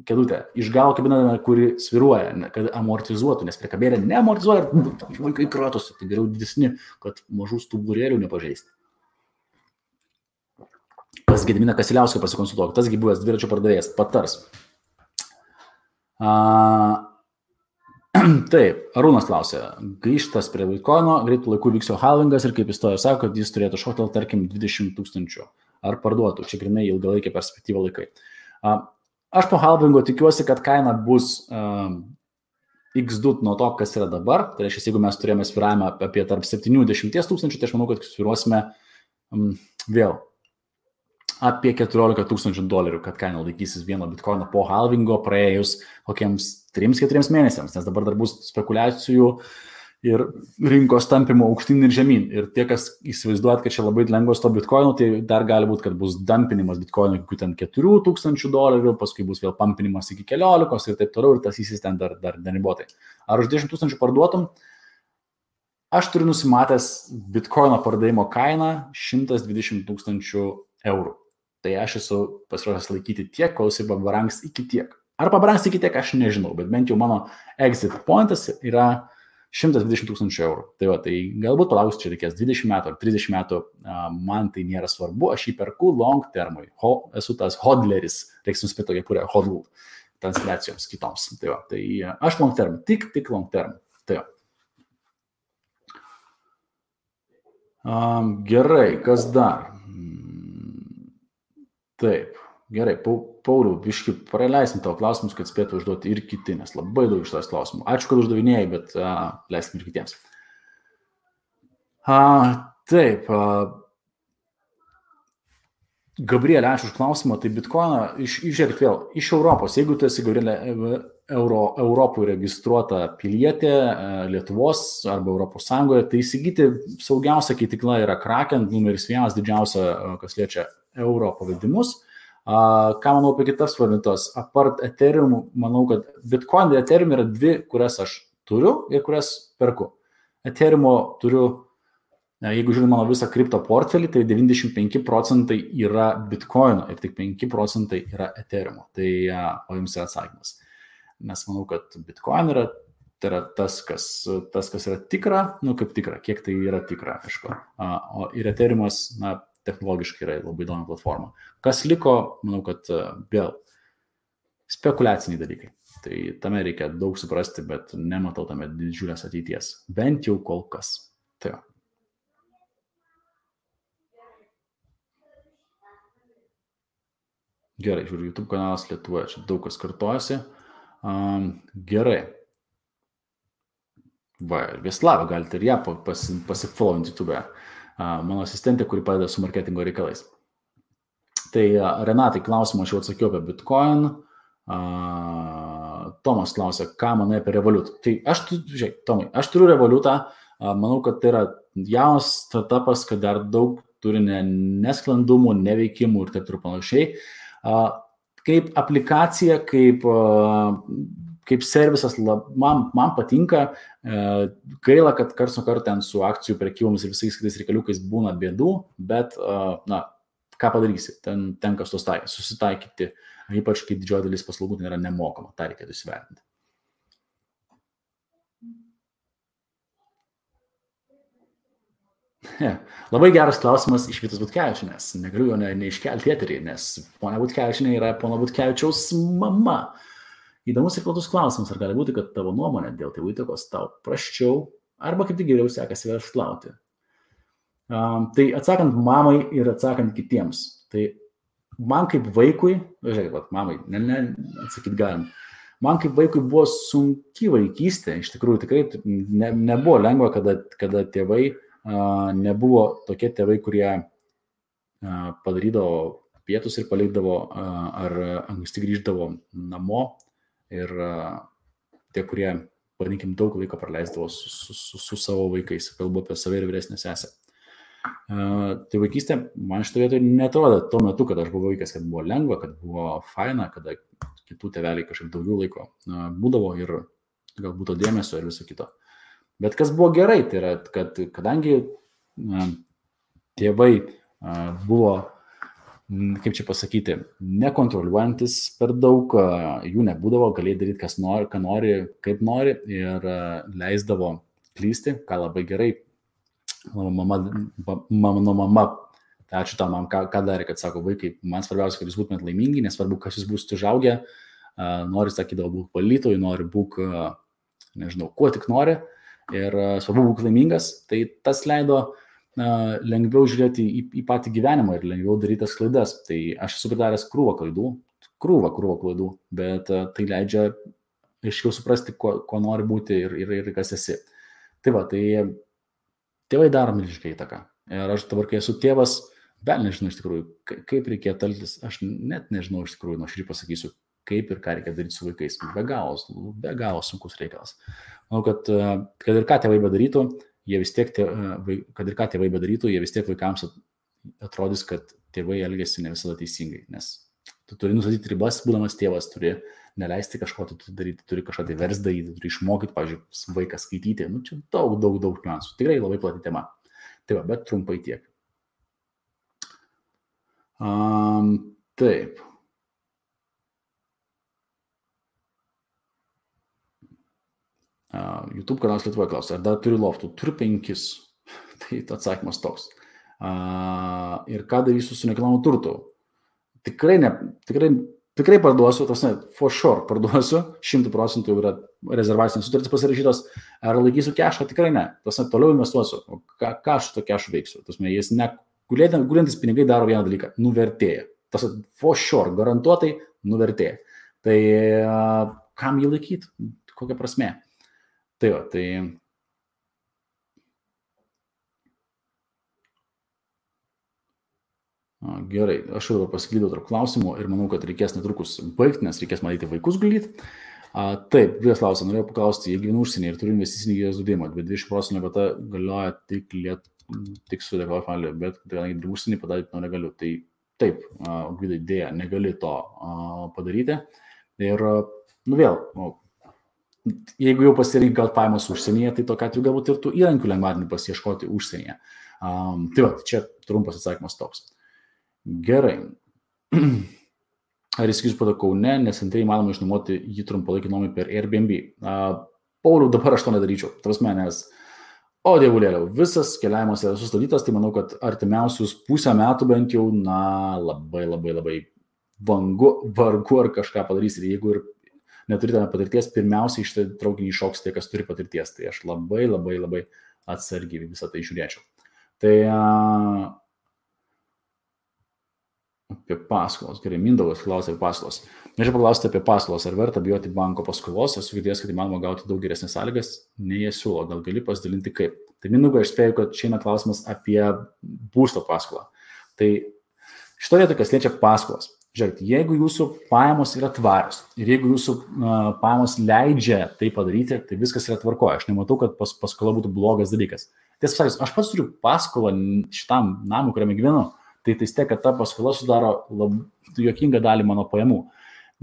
kėdutę iš galo kabiname, kuri sviruoja, kad amortizuotų, nes priekabėlė neamortizuoja ir vaikai kratosi. Tai geriau didesni, kad mažų stuburėlių nepažeisti. Pas Gediminą Kasiliauską pasikonsultuok, tasgi buvęs dviračio pardavėjas, patars. Taip, Arūnas klausė, grįžtas prie Bitcoino, greitų laikų vyksio halvingas ir kaip istorija sako, kad jis turėtų šokti, tarkim, 20 000 ar parduotų, čia grinai ilgalaikė perspektyva laikai. Aš po halvingo tikiuosi, kad kaina bus x2 nuo to, kas yra dabar, tai reiškia, jeigu mes turėjome sviravimą apie tarp 70 000, tai aš manau, kad sviruosime vėl apie $14 000, kad kaina laikysis vieno bitkoino po halvingo praėjus kokiems 3-4 mėnesiams, nes dabar dar bus spekulacijų ir rinkos tampimo aukštyn ir žemyn. Ir tie, kas įsivaizduojat, kad čia labai lengvas to bitkoino, tai dar gali būti, kad bus dumpinimas bitkoino iki ten $4,000, paskui bus vėl pampinimas iki 14 ir taip toliau, ir tas įsis ten dar neribotai. Ar už 10 000 parduotum? Aš turiu nusimatęs bitkoino pardavimo kainą €120 000. Tai aš esu pasiruošęs laikyti tiek, kol jisai pabrangs iki tiek. Ar pabrangs iki tiek, aš nežinau, bet bent jau mano exit pointas yra €120 000. Tai va, tai galbūt palauks čia reikės 20 metų ar 30 metų, man tai nėra svarbu, aš jį perku long termui. Esu tas hodleris, reiks nuspėti tokia, kuria hodl transliacijoms kitoms. Tai va, tai aš long term, tik long term. Tai va. Gerai, kas dar? Taip, gerai, Pauliau, biškį praleisim tavo klausimus, kad spėtų užduoti ir kiti, nes labai daug iš tavęs klausimų. Ačiū, kad uždavinėjai, bet leiskim ir kitiems. Taip, Gabrielė, ačiū už klausimą, tai bitkoiną, žiūrėkit vėl, iš Europos, jeigu tu esi, Gabrielė, Europoje registruota pilietė, Lietuvos arba Europos Sąjungoje, tai įsigyti saugiausia keitikla yra Kraken, numeris 1 didžiausia, kas liečia euro pavedimus. Ką manau apie kitas valiutas? Apart Ethereum, manau, kad Bitcoin ir Ethereum yra dvi, kurias aš turiu ir kurias perku. Ethereum turiu, jeigu žiūrėjau mano visą kripto portfelį, tai 95% yra Bitcoin ir tik 5% yra Ethereum. Tai o jums yra atsakymas. Nes manau, kad Bitcoin yra, tai yra tas, kas yra tikra, kaip tikra, kiek tai yra tikra, aišku. O ir Ethereumas, technologiškai yra labai įdomi platforma. Kas liko, manau, kad vėl spekuliaciniai dalykai. Tai tame reikia daug suprasti, bet nematau tame didžiulės ateities. Bent jau kol kas. Tai jo. Gerai, žiūriu, YouTube kanalas Lietuvoje, čia daug kas kartojasi. Gerai. Va, Vieslava, galite ir ją pasifollowinti YouTube'e. Mano asistentė, kuri padeda su marketingo reikalais. Tai Renatai klausimą aš jau atsakiau apie Bitcoin. Tomas klausė, ką manai apie Revolut. Tai Tomai, aš turiu Revolutą, manau, kad tai yra jaunas startupas, kad dar daug turi nesklandumų, neveikimų ir taip ir panašiai. kaip aplikacija, kaip servisas, man patinka, gaila, kad karts nuo karto ten su akcijų prekybomis ir visais kitais reikaliukais būna bėdų, bet, ką padarysi, ten tenka susitaikyti, ypač kai didžioji dalis paslaugų ten yra nemokama, tą reikėtų įsivertinti. Labai geras klausimas iš Vytos Butkevičienės. Negaliu jo neiškelti eterį, nes ponia Butkevičienė yra pono Butkevičiaus mama. Įdomus ir platus klausimas, ar gali būti, kad tavo nuomonė dėl tėvų įtakos tau prasčiau, arba kaip tik geriau sekasi verslauti. Tai atsakant mamai ir atsakant kitiems. Tai man kaip vaikui, žiūrėkit, mamai, atsakyti galim. Man kaip vaikui buvo sunki vaikystė, iš tikrųjų tikrai nebuvo lengva, kada tėvai nebuvo tokie tėvai, kurie padarydavo pietus ir palikdavo ar anksti grįždavo namo ir tie, kurie, vadinkim, daug laiko praleisdavo su savo vaikais, kalbu apie save ir vyresnę sesę. Tai vaikystė man šitą vietą netrodė tuo metu, kad aš buvau vaikas, kad buvo lengva, kad buvo faina, kada kitų tėveliai kažkaip daugiau laiko būdavo ir galbūt to dėmesio ir viso kito. Bet kas buvo gerai, tai yra, kad kadangi tėvai buvo, kaip čia pasakyti, nekontroliuojantis per daug, jų nebūdavo, galėjai daryti, kas nori, ką nori, kaip nori ir leisdavo klysti, ką labai gerai. Mano mama, tai ačiū tam, ką darė, kad sako, vaikai, man svarbiausia, kad jūs būtumėt laimingi, nesvarbu, kas jūs būsite užaugę, nori, sakydavo, būk valytojų, nori, būk, nežinau, kuo tik nori. Ir svarbu būk laimingas, tai tas leido lengviau žiūrėti į patį gyvenimą ir lengviau daryti tas klaidas. Tai aš esu padaręs krūvą klaidų, bet tai leidžia aiškiau suprasti, ko nori būti ir kas esi. Tai va, tai tėvai daro milžinišką įtaką. Ir aš dabar, kai esu tėvas, vėl nežinau iš tikrųjų, kaip reikėtų elgtis, aš net nežinau iš tikrųjų, nuoširdžiai pasakysiu, kaip ir ką reikia daryti su vaikais. Be galo sunkus reikalas. Manau, kad ir ką tėvai bedarytų, jie vis tiek vaikams atrodys, kad tėvai elgėsi ne visada teisingai, nes tu turi nustatyti ribas, būdamas tėvas, turi neleisti kažko daryti, turi kažką tai vers daryti, turi išmokyti, pavyzdžiui, vaiką skaityti. Nu, čia daug niuansų. Tikrai labai plati tema. Tai va, bet trumpai tiek. Taip. YouTube kanalas Lietuvoje klausia, ar dar turiu loftų? Turiu 5. Tai atsakymas toks. Ir ką darysiu su nekilnojamu turtu? Tikrai parduosiu, for sure parduosiu, 100% jau yra rezervacinės sutartys pasirašytos, ar laikysiu kešą? Tikrai ne. Toliau investuosiu. O ką aš su to kešu veiksiu? Jis gulintis pinigai daro vieną dalyką, nuvertėja. For sure, garantuotai nuvertėja. Tai kam jį laikyti? Kokia prasmė? Tai va, tai gerai, aš jau pasiklydau tarp klausimų ir manau, kad reikės netrukus baigti, nes reikės matyti vaikus gulyti. Taip, vienas klausimas, norėjau paklausti, jei gyvenu užsienyje ir turiu investicinį gyvės draudimą, bet 20% lengvata galioja tik su deklaravimą, bet kadangi dirbu užsienį padaryti negaliu. Tai taip, Gvidai, dėja, negali to padaryti. Ir, vėl, jeigu jau pasirinkai gal pajamas užsienyje, tai tokia atveju galbūt ir tų įrankių lengvatinių pasiieškoti užsienyje. Tai va, čia trumpas atsakymas toks. Gerai. Ar įsigijus pada Kaune, nes antrai įmanoma išnuomoti jį trumpalaikį nuomai per Airbnb? Pauliau, dabar aš to nedaryčiau. Tavasme, nes, dievulėliau, visas keliavimas yra sustabdytas, tai manau, kad artimiausius pusę metų bent jau, labai vargu ar kažką padarys. Ir jeigu ir neturite patirties, pirmiausiai iš tai traukinį iššoks tie, kas turi patirties. Tai aš labai atsargiai visą tai žiūrėčiau. Tai apie paskolas. Gerai, Mindaugas klausia apie paskolas. Norėčiau paklausti apie paskolas. Ar verta bijoti banko paskolos? Esu girdėjęs, kad įmanoma gauti daug geresnės sąlygas, nei jie siūlo. Gal gali pasidalinti kaip? Tai Mindaugai, aš spėju, kad čia eina klausimas apie būsto paskolą. Tai šito vietoje, kas liečia paskolas. Žiūrėkit, jeigu jūsų pajamos yra tvarios ir jeigu jūsų pajamos leidžia tai padaryti, tai viskas yra tvarkoje. Aš nematau, kad paskola būtų blogas dalykas. Tiesą sakant, aš pats turiu paskolą šitam namui, kuriame gyvenu. tai tiek, kad ta paskola sudaro juokingą dalį mano pajamų.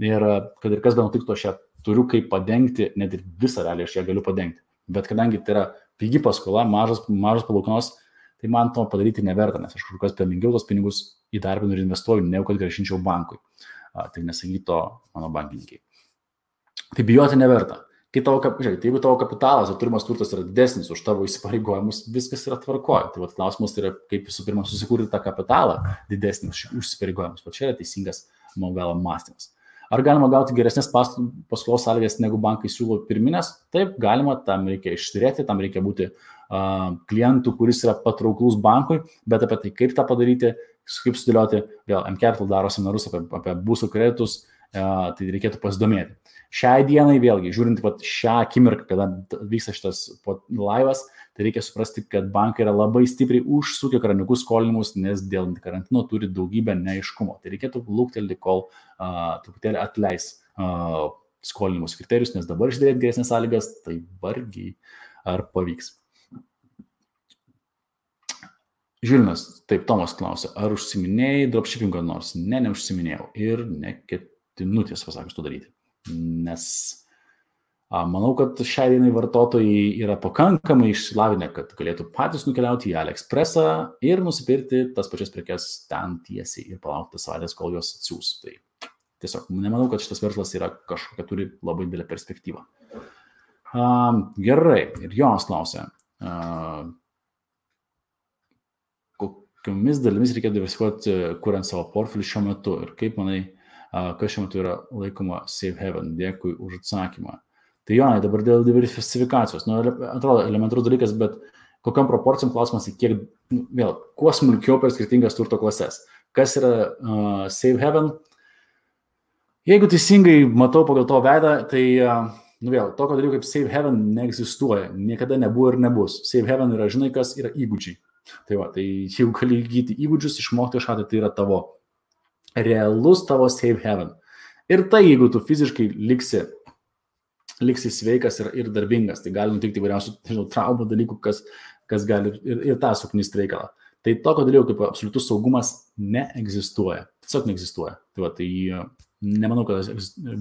Ir kad ir kas be nutiktų, aš ją turiu kaip padengti, net ir visą realiai aš ją galiu padengti. Bet kadangi tai yra pigi paskola, mažas palūkanos, tai man to padaryti neverta, nes aš kažkokios pelningiau tos pinigus įdarbinu ir investuoju, negu kad grąžinčiau bankui. Tai nesakytų to mano bankininkai. Tai bijoti neverta. Jeigu tavo kapitalas ir turimas turtas yra didesnis už tavo įsipareigojimus, viskas yra tvarkoje. Tai klausimas yra, kaip visų pirma susikurti tą kapitalą didesnį už įsipareigojimus. O čia yra teisingas, mano galo, mąstymas. Ar galima gauti geresnės paskolos sąlygas, negu bankai siūlo pirminės? Taip, galima, tam reikia išsiturėti, tam reikia būti klientų, kuris yra patrauklus bankui, bet apie tai, kaip tą padaryti, kaip sudėlioti, vėl mCapital daro seminarus apie būstų kreditus, tai reikėtų pasidomėti. Šiai dienai vėlgi, žiūrint šią akimirką, kada vyksta šitas laivas, tai reikia suprasti, kad bankai yra labai stipriai užsukę kraniukus skolinimus, nes dėl karantino turi daugybę neaiškumo. Tai reikėtų luktelti, kol truputėlį atleis skolinimus kriterijus, nes dabar išdėlėti geresnės sąlygas, tai vargiai ar pavyks. Žilvinas, taip, Tomas klausia, ar užsiminėjai dropshippingo nors? Ne, neužsiminėjau ir neketinu tiesą pasakius to daryti. Nes manau, kad šiai dienai vartotojai yra pakankamai išsilavinę, kad galėtų patys nukeliauti į AliExpressą ir nusipirkti tas pačias prekes ten tiesiai ir palaukti savaitės, kol jos atsiūs. Tai tiesiog nemanau, kad šitas verslas yra kažkokia turi labai didelę perspektyvą. Gerai, ir Jonas klausia, kokiomis dalimis reikia diversifikuoti, kuriant savo portfelį šiuo metu ir kaip manai, kas šiuo metu yra laikoma safe haven. Dėkui už atsakymą. Tai Jonai, dabar dėl diversifikacijos. Atrodo elementarus dalykas, bet kokiam proporcijom klausimas, kiek, vėl, kuo smulkiau per skirtingas turto klases. Kas yra safe haven? Jeigu teisingai matau pagal to veidą, tai vėl, tokio dalyko kaip safe haven neegzistuoja. Niekada nebuvo ir nebus. Safe haven yra, žinai, kas yra įgūdžiai. Tai jeigu gali įgyti įgūdžius, išmokti kažką, tai yra tavo realus tavo safe haven. Ir tai, jeigu tu fiziškai liksi sveikas ir darbingas, tai gali nutikti įvairiausių traumų dalykų, kas gali ir tą suknisti reikalą. Tai tokio dalyko kaip absoliutus saugumas neegzistuoja. Tiesiog neegzistuoja. Tai nemanau, kad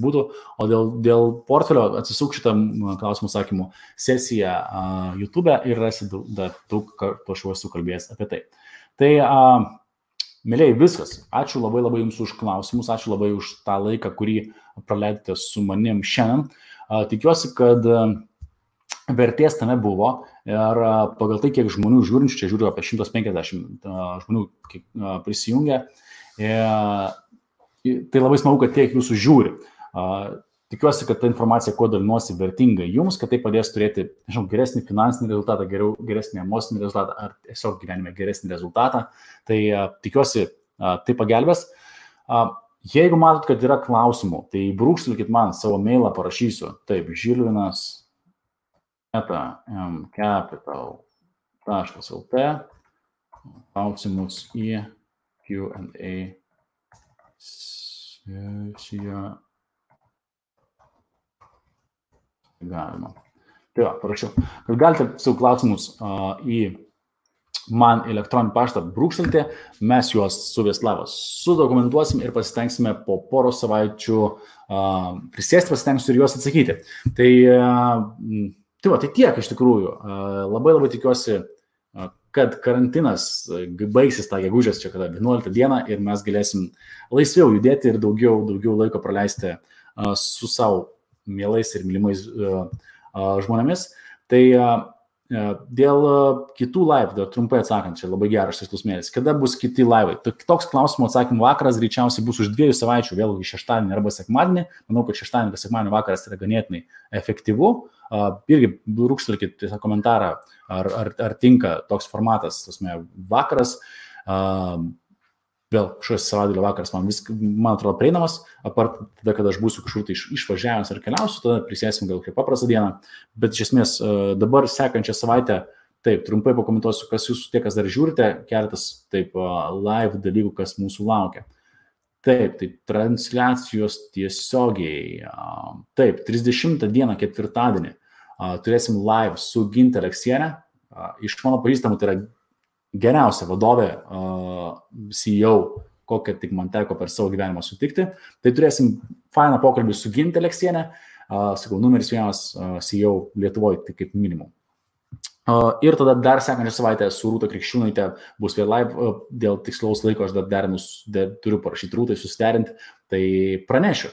būtų. O dėl portfelio atsisuk šitą klausimų sakymų sesiją YouTube ir rasi daug kartų aš jau esu kalbėjęs apie tai. Tai mėlėjai, viskas. Ačiū labai Jums už klausimus, ačiū labai už tą laiką, kurį praleidote su manim šiandien. Tikiuosi, kad vertės tame buvo ir pagal tai, kiek žmonių žiūrinčių, čia žiūriu apie 150 žmonių prisijungia, tai labai smagu, kad tiek Jūsų žiūri. Tikiuosi, kad ta informacija, kuo dalinuosi, vertinga Jums, kad tai padės turėti, geresnį finansinį rezultatą, geresnį emocinį rezultatą ar tiesiog gyvenime geresnį rezultatą. Tai tikiuosi, tai pagelbės. Jeigu matot, kad yra klausimų, tai brūkštelkit man savo mailą, parašysiu. Taip, Žilvinas mcapital.lt klausimus į Q&A sesiją. Galima. Tai parašiau. Kad galite savo klausimus į man elektroninį paštą brūkštelti, mes juos su Vieslavas sudokumentuosim ir pasitengsime po poros savaičių prisėsti, pasitengsiu ir juos atsakyti. Tai tiek iš tikrųjų. Labai tikiuosi, kad karantinas baigsis tą gegužės čia kada 11 dieną ir mes galėsim laisviau judėti ir daugiau laiko praleisti su savo mielais ir mylimais žmonėmis. Tai dėl kitų live, trumpai atsakant, čia labai geras šis klausimėlis, kada bus kiti live? Toks klausimų atsakymų vakaras greičiausiai bus už 2 savaičių, vėlgi šeštadienį arba sekmadienį. Manau, kad šeštadienį arba sekmadienį vakaras yra ganėtinai efektyvu. Irgi brūkštelkit tiesiog komentarą, ar tinka toks formatas, vakaras. Vėl šios savaitgalio vakaras man atrodo prieinamas, apart tada, kada aš būsiu kažkur tai išvažiavęs ar keliausiu, tada prisėsim gal kaip paprastą dieną, bet iš esmės dabar sekančią savaitę, taip, trumpai pakomentuosiu, kas jūs tie, kas dar žiūrite, keletas taip live dalykų, kas mūsų laukia. Taip, tai transliacijos tiesiogiai, taip, 30 dieną, ketvirtadienį, turėsim live su Ginte Aleksienė, iš mano pažįstamų tai yra geriausia vadovė, CEO, kokią tik man teko per savo gyvenimą sutikti. Tai turėsim fainą pokalbį su Gintė Aleksienė, sakau, numeris 1 CEO Lietuvoje, tai kaip minimum. Ir tada dar sekančią savaitę su Rūta Krikščiūnaitė bus vėl live, dėl tikslaus laiko aš dar turiu parašyti Rūtai, susiderinti, tai pranešiu.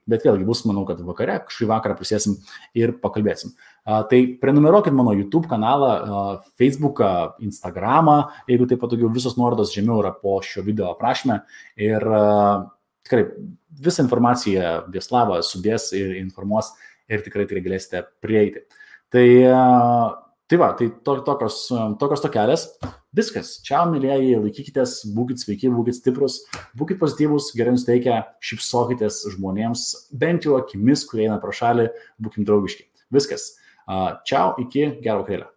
Bet vėlgi bus, manau, kad vakare, kažkaip vakarą prisėsim ir pakalbėsim. Tai prenumeruokit mano YouTube kanalą, Facebooką, Instagramą, jeigu tai patogiau, visos nuorodos žemiau yra po šio video aprašyme. Ir tikrai visą informaciją Vieslava sudės ir informuos ir tikrai galėsite prieiti. Tai va, tai tokios tokelės. Viskas. Čiau, mėlyjeji, laikykitės, būkit sveiki, būkit stiprus, būkit pozityvus, gerai nusteikę, šypsokitės žmonėms, bent jau akimis, kurie eina pro šalį, būkim draugiški. Viskas. Čiau, iki gero vakarėlio.